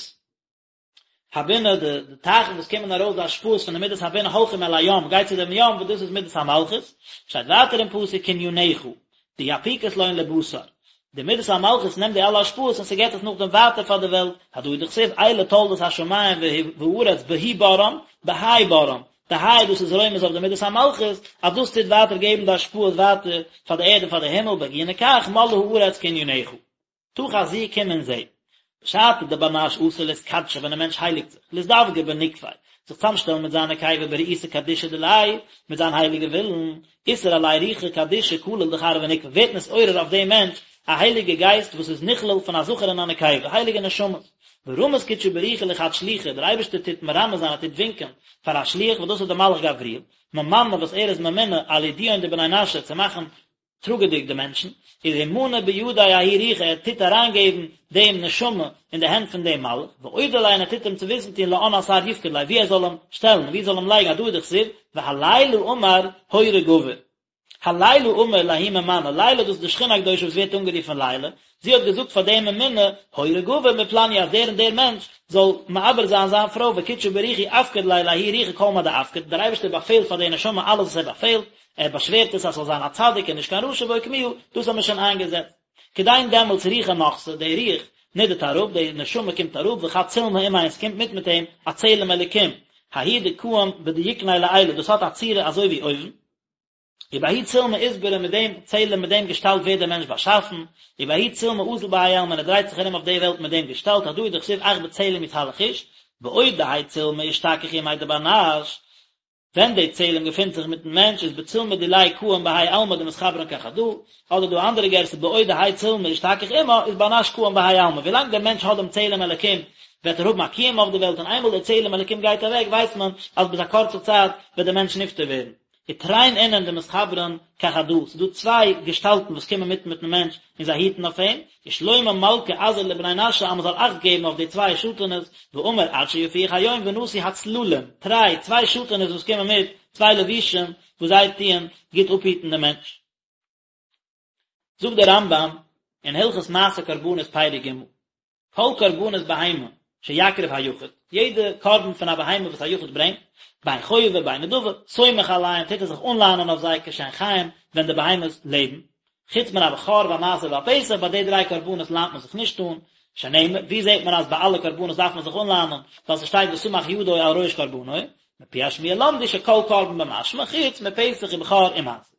הבינה, די די טייכן וואס קומען ארויס די השפעות פון די מידת הבינה הולכים אל הים, גייט צו דעם ים וואס דאס איז מידת המלכות, שטייט ווייטער אין פסוק קניניך, דיפיקת לון לבתר, די מידת המלכות נעמט די אלע השפעות און ס'געט עס נאכדעם ווייטער פאר די וועלט, הדא הוא דכתיב אלה תולדות השמים והארץ בהוא בראם, בהאי בראם, די היי דאס איז רומז אויף די מידת המלכות, אז דאס טוט ווייטער געבן די השפעות ווייטער פאר די ערד און פאר די הימל, בגיני כך מלאה הארץ קניניך. תא חזי קום און זע. בשעתא דבר נש אתי לאתקדשא ווען א מענטש הייליגט זיך, לאזדווגא בנוקביה, זיך צאמשטעלן מיט זיין נקבה ברעותא קדישא דיליה, מיט זיין הייליגע ווילן, אתער עליה רוחא קדישא כליל דכר ונוקבא, ווערט נתעורר אויף דעם מענטש א הייליגע גייסט וואס איז נכלל פון א זכר און א נקבה, הייליגע נשמות. ורמיז קודשא בריך הוא לחד שליחא, דער אייבערשטער טוט מרמז זיין ער טוט ווינקען פאר א שליח וואס דאס איז דער מלאך גבריאל, ממנא וואס ער איז ממונה על עדויין דבני נשא צו מאכן טראגעדיג די מענטשן, איז ומני בידיה ההוא רוחא ער טוט אריינגעבן דעם נשמה אין די הענט פון דעם מלאך, ואודי ליה און ער טוט אים צו וויסן טון לאן אתר יפקיד ליה וואו ער זאל אים שטעלן און וואו ער זאל אים לייגן הדא הוא דכתיב והלילה אמר הורה גבר. הלילה אמר לההוא ממנא, לילה דאס איז די שכינה הקדושה וואס ווערט אנגערופן לילה, זי האט געזאגט פאר דעם ממונה, הורה גבר מפלניא אז דער און דער מענטש זאל מעבר זיין זיין פרוי וקודשא בריך הוא אפקיד ליה לההוא רוחא כל מה דאפקיד, דער אייבערשטער באפעלט פאר די נשמה אלעס וואס ער באפעלט, ער באשווערט עס אז ס'זאל זיין א צדיק און נישט קיין רשע ואוקמוה, דאס האט מען שוין איינגעזעצט. כדין דעמאלטס רוחא נחתא, די רוח נידערט אראפ, די נשמה קומט אראפ, וחד צלמא עמיה און ס'קומט מיט מיט אים א צלם אלוקים, ההוא דקאים בדיוקניה לעילא, דאס האט א צורה אזוי ווי אויבן, ובההוא צלמא אתברא מיט דעם צלם מיט דעם געשטאלט ווערט דער מענטש באשאפן, ובההוא צלמא אזיל בהאי עלמא און ער דרייט זיך ארום אויף די וועלט מיט דעם געשטאלט הדא הוא דכתיב אך בצלם יתהלך איש, בעוד דהאי צלמא אשתכח עמיה דבר נש, ווען די צלם געפינט זיך מיטן מענטש איז בצלמא דיליה קאים בהאי עלמא דמתחברן כחדא, אדער דא אנדערע גירסא בעוד דהאי צלמא אשתכח עמה איז בר נש קאים בהאי עלמא, ווילאנג דער מענטש האט דעם צלם אלקים וועט ער האבן א קיום אויף די וועלט און איינמאל דער צלם אלקים גייט אוועק ווייסט מען אז ביז א קורצע צייט וועט דער מענטש נפטר ווערן. ותרין אינון דמתחברן כחדא, ס'איז דא צוויי געשטאלטן וואס קומען מיט מיטן מענטש און זיי היטן אויף אים, ושלמה מלכא אזהר לבני נשא אז מ'זאל אכט געבן אויף די צוויי שאטענעס, ואמר עד שיפיח היום ונסו הצללים, תרי, צוויי שאטענעס וואס קומען מיט, צוויי לבושים וואס זיי טוען גוט אפהיטן דעם מענטש. זאגט דער רמב"ם אין הלכות מעשה קרבנות פרק ג', כל קרבנות בהמה שיקריב היחיד, יעדע קרבן פון א בהמה וואס א יחיד ברענגט, בין חובה בין נדבה, סומך עליהם, טוט ער זיך אנלאנען אויף זיי כשהן חיים, ווען די בהמות לעבן, חוץ מן הבכור והמעשר והפסח, ביי די דריי קרבנות לאנט מען זיך נישט אן, שנאמר, ווי זעט מען אז ביי אלע קרבנות דארף מען זיך אנלאנען, ווייל ס'שטייט וסמך ידו על ראש קרבנו, מפי השמועה למדו שכל קרבן במשמע, חוץ מפסח ובכור ומעשר.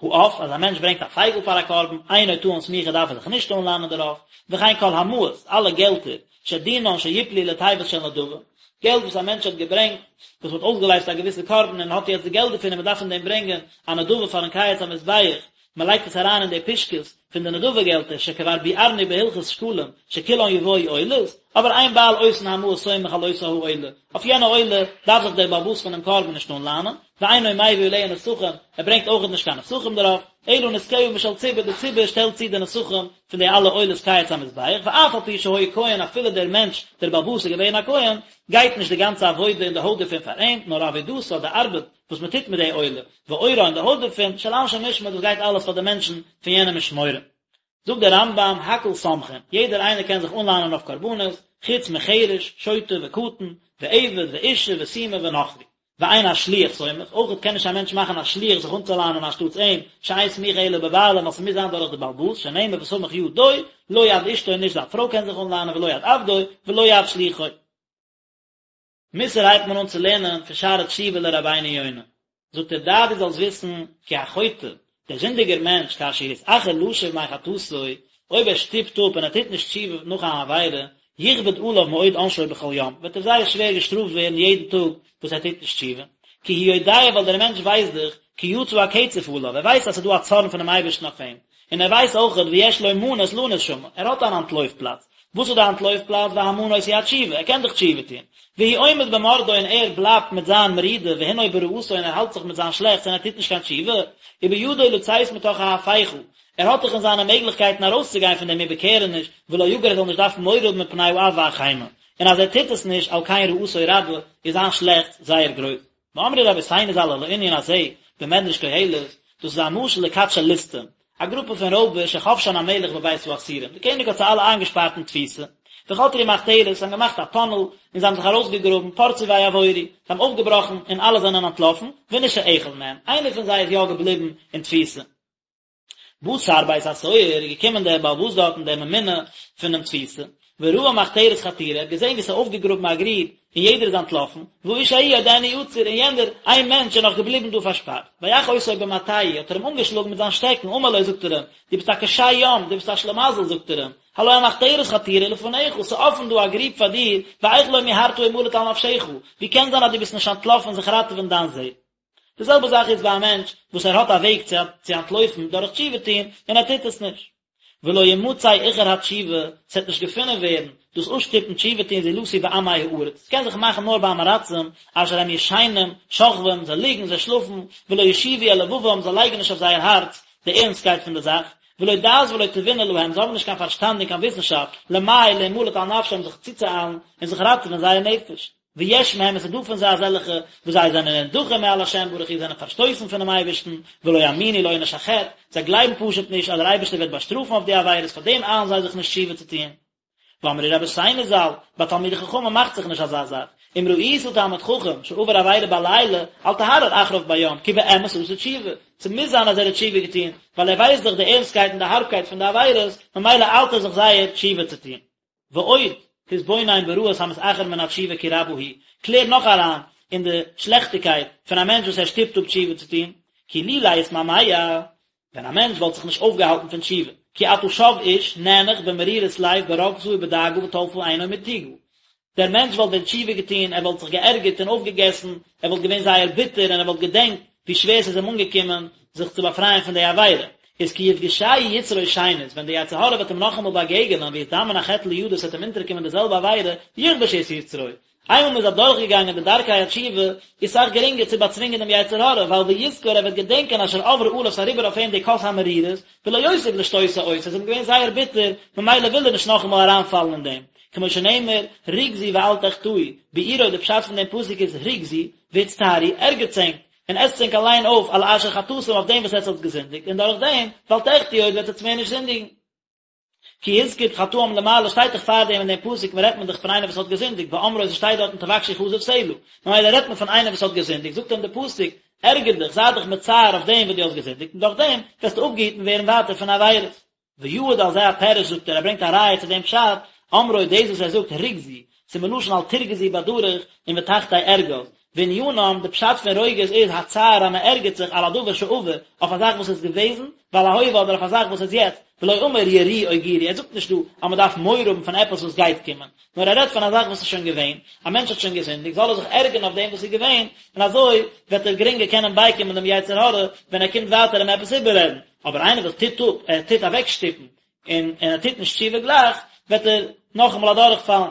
העוף, אז א מענטש ברענגט א פייגל פאר א קרבן, אינו טעון סמיכה דארף ער זיך נישט אנלאנען דערויף, וכן כל המעות, אלע געלטער, שדינן שיפלו לתיבות של נדבה, געלט וואס א מענטש האט געברענגט, וואס מ'האט אויסגעלייזט א געוויסע קרבן און האט יעצט די געלט דערפון און מ'דארף פון דעם ברענגען א נדבה פארן קיץ המזבח, מ'לייגט עס אריין אין די פושקעס פון די נדבה געלטער, שכבר ביארנו בהלכות שקלים, שכולן יבואו עולות, אבער אין בעל אותן המעות סומך על אותה העולה, אויף יענע עולה דארף זיך דער בעל הבית פונעם קרבן נישט אנלאנען, ואינו מביא עליה נסכים, ער ברענגט אויכעט נישט קיין נסכים דערויף, אלא נסכיה משל ציבור, די ציבור שטעלט צו די נסכים פון די אלע עולות קיץ המזבח, ואף על פי שהיה כהן אפילו דער מענטש, דער בעל הבית איז געווען א כהן, גייט נישט די גאנצע עבודה און די הויט דערפון פאר אים, נאר עבודתה, די ארבעט וואס מען טוט מיט די עולה, ועורה און די הויט דערפון, של אנשי משמר, דאס גייט אלעס פאר די מענטשן פון יענע משמורה. זאגט דער רמב"ם, הכל סומכין, יעדער איינער קען זיך אנלאנען אויף קרבנות, חוץ מחרש, שוטה וקטן, ועבד ואישה וסומא ונכרי. ואין השליח סומך, אויכעט קען נישט א מענטש מאכן א שליח זיך אנצולאנען אנשטאטס אים, שאין סמיכה אלא בבעלים, ווייל ס'מוז זיין דורך די בעל הבית, שנאמר וסמך ידו, לא יד אשתו נישט זיין פרוי קען זיך אנלאנען ולא יד עבדו, ולא יד שלוחו. מוסר הייבט מען אן צו לערנען פון שערי תשובה לרבינו יונה, זאגט ער דע דו זאלסט וויסן כי החוטא, דער זינדיגער מענטש כאשר יתאחר לשוב מחטאתו, אויב ער שטופט אפ און ער טוט נישט תשובה נאך אן עבירה, יכבד עליו מאוד עונשו בכל יום, וועט ער זייער שווער געשטראפט ווערן יעדן טאג וואס ער טוט נישט תשובה, כי הוא יודע ווייל דער מענטש ווייסט דאך, כי יצא הקצף עליו, ער ווייסט אז ס'איז דא א צארן פונעם אייבערשטן אויף אים, און ער ווייסט אויכעט ויש לו מנוס לנוס שמה, ער האט אן אנטלויף פלאץ, וואס איז די אנטלויף פלאץ והמנוס הוא התשובה, ער קען דאך תשובה טון, והוא עומד במרדו און ער בלייבט מיט זיין מרידה והנהו ברעתו און ער האלט זיך מיט זיין שלעכטס און ער טוט נישט קיין תשובה, ובידו לצאת מתוך ההפיכה, ער האט דאך אין זיינע מעגליכקייטן ארויסצוגיין פון דעם איבערקערעניש, ולא יגור ער זאל נישט דארפן מורא האבן מפני האף והחימה, און אז ער טוט עס נישט על כן רעתו רבה, איז זיין שלעכטס זייער גרויס. ואמרו רבותינו ז"ל על הענין הזה במדרש קהלת, דאס איז א משל לכת של ליסטים, א גרופע פון רויבער שחבשן המלך בבית האסורים, דער קעניג האט זיי אלע איינגעשפארט אין תפיסה, וחתרו מחתרת, זיי האבן געמאכט א טונעל, און זיי האבן זיך ארויסגעגראבן, פרצו ויעבורו, זיי האבן אויפגעבראכן, און אלע זענען אנטלאפן, ונשאר אחד מהם, איינער פון זיי איז יא געבליבן אין תפיסה. בא שר בית הסוהר, איז געקומען דער בעל הבית דארטן דער ממונה פונעם תפיסה, וראה מחתרת חתורה, ער האט געזען ווי ס'איז אויפגעגראבן א גריב און יעדער איז אנטלאפן, והאיש ההוא עודנו עצור, און יענער איין מענטש איז נאך געבליבן דא פארשפארט. ויך אותו במטהו, האט ער אים אנגעשלאגן מיט זיין שטעקן, אמר לו, זאגט ער אים, דו ביסט א קשה יום, דו ביסט א שלימזל, זאגט ער אים, הלא המחתרת חתורה לפניך, ס'איז אפן דא א גריב פאר דיר, ואיך לא מיהרת המלט על נפשך, ווי קען זיין אז דו ביסט נישט אנטלאפן זיך ראטעווען דיין זעל? די זעלבע זאך איז ביי א מענטש וואס ער האט א וועג צו צו אנטלויפן דורך תשובה טון און ער טוט עס נישט. ולא ימצא איחור התשובה, ס'וועט נישט געפונען ווערן דאס אפשטופן תשובה טון זולתי בעמי הארץ, ס'קען זיך מאכן נאר ביי עם הארצים, אשר הם ישנים, שוכבים, זיי ליגן, זיי שלאפן, ולא ישיבו אל לבבם, זיי לייגן נישט אויף זייער הארץ די ערנסטקייט פון די זאך, ולא דעת ולא תבונה להם, זיי האבן נישט קיין פארשטאנד און קיין וויסנשאפט, למהר להמלט על נפשם זיך צוצואיילן און זיך ראטעווען זייער נפש. ויש מהם עס איז דא פון זיי אזעלכע וואס זיי זענען נדחים מעל השם ברוך הוא זענען פארשטויסן פונעם אייבערשטן, ולא יאמינו לעונש החטא, זיי גלייבן פשוט נישט אז דער אייבערשטער וועט באשטראפן אויף די עבירות פאר דעם איילן זיי זיך נישט תשובה צו טון. ואמרו רבותינו ז"ל, ביי תלמידי חכמים מאכט זיך נישט אזא זאך, אם ראית תלמיד חכם שעבר עבירה בלילה, אל תהרהר אחריו ביום, כי באמת עשה תשובה, ס'מוז זיין אז ער האט תשובה געטון, ווייל ער ווייסט דאך די ערנסטקייט און די הארבקייט פון די עבירות, ממילא איילט ער זיך זייער תשובה צו טון. ועוד, תתבונן ברעות המתאחר מן התשובה כי רבה היא, קלער נאך אריין אין די שלעכטיגקייט פון א מענטש וואס ער שטופט אפ תשובה צו טון, כי לולא התמהמה, ווען א מענטש וואלט זיך נישט אויפגעהאלטן פון תשובה, כי עתה שב איש נאנח במרירות לב ברוגזה ובדאגה וטלפה עינו מתוגה, דער מענטש וואלט ווען תשובה געטון, ער וואלט זיך געערגערט און אויפגעגעסן, ער וואלט געווען זייער ביטער און ער וואלט געדענקט ווי שווער ס'איז אים אנגעקומען זיך צו באפרייען פון די עבירה. איז כי יפגשהו יצרו שנית, ווען די יצר הרע וועט אים נאכאמאל באגעגענען ויזדמן החטא לידו ס'וועט אים אונטערקומען די זעלבע עבירה, יכבוש את יצרו. איינמאל מ'איז אדורכגעגאנגען די דרכי התשובה, איז סאך גרינגער צו באצווינגען דעם יצר הרע, ווייל ויזכור ער וועט געדענקען אשר עברה עליו ס'איז אריבער אויף אים די כוס המרירות, ולא יוסיף לשתותה עוד, ס'איז אים געווען זייער ביטער, ממילא וויל ער נישט נאכאמאל אריינפאלן אין דעם. כמו שנאמר, רגזו ואל תחטאו, ביאורו די פשט פון דעם פסוק איז רגזו, והצטערו, ערגערטס ענק, און עסטס ענק אליין אויף על אשר חטאתם אויף דעם וואס עטס האטס געזינדיגט, און דורך דעם, ואל תחטאו עוד וועט עטס מער נישט זינדיגן. כי הזכיר חטאים למעלה שטייט דאך פארדעם אין דעם פסוק מען רעדט מען דאך פון איינער וואס האט געזינדיגט באמרו עס שטייט דארטן תבקשו כזב סלה ממילא רעדט מען פון איינער וואס האט געזינדיגט זאגט אים דער פסוק ערגער דיך זיי דיך מצער אויף דעם וואס דו האסט געזינדיגט און דורך דעם וועסטו אפגעהיטן ווערן ווייטער פון עבירות. ויעיד על זה הפירוש זאגט ער ער ברענגט א ראיה צו דעם פשט אמרו דאס וואס ער זאגט רגזו ס'איז מלשון אל תרגזו בדרך און ותחתי ארגז וענינם, די פשט פון רוגז איז הצער אז מען ערגערט זיך על הדבר שעבר, אויף א זאך וואס איז געוועזן, ועל ההווה אדער אויף א זאך וואס איז יעצט, ולא אמר יראו או גורו, ער זאגט נישט דא אז מען דארף מורא האבן פון עפעס וואס גייט קומען, נאר ער רעדט פון א זאך וואס איז שוין געווען, א מענטש האט שוין געזינדיגט, זאל ער זיך ערגערן אויף דעם וואס איז געווען, און אזוי וועט ער גרינגער קענען בייקומען דעם יצר הרע ווען ער קומט ווייטער אים עפעס איבעררעדן, אבער איינער וואס טוט אפ, ער טוט אוועקשטופן, און און ער טוט נישט תשובה גלייך, וועט ער נאכאמאל אדורכפאלן.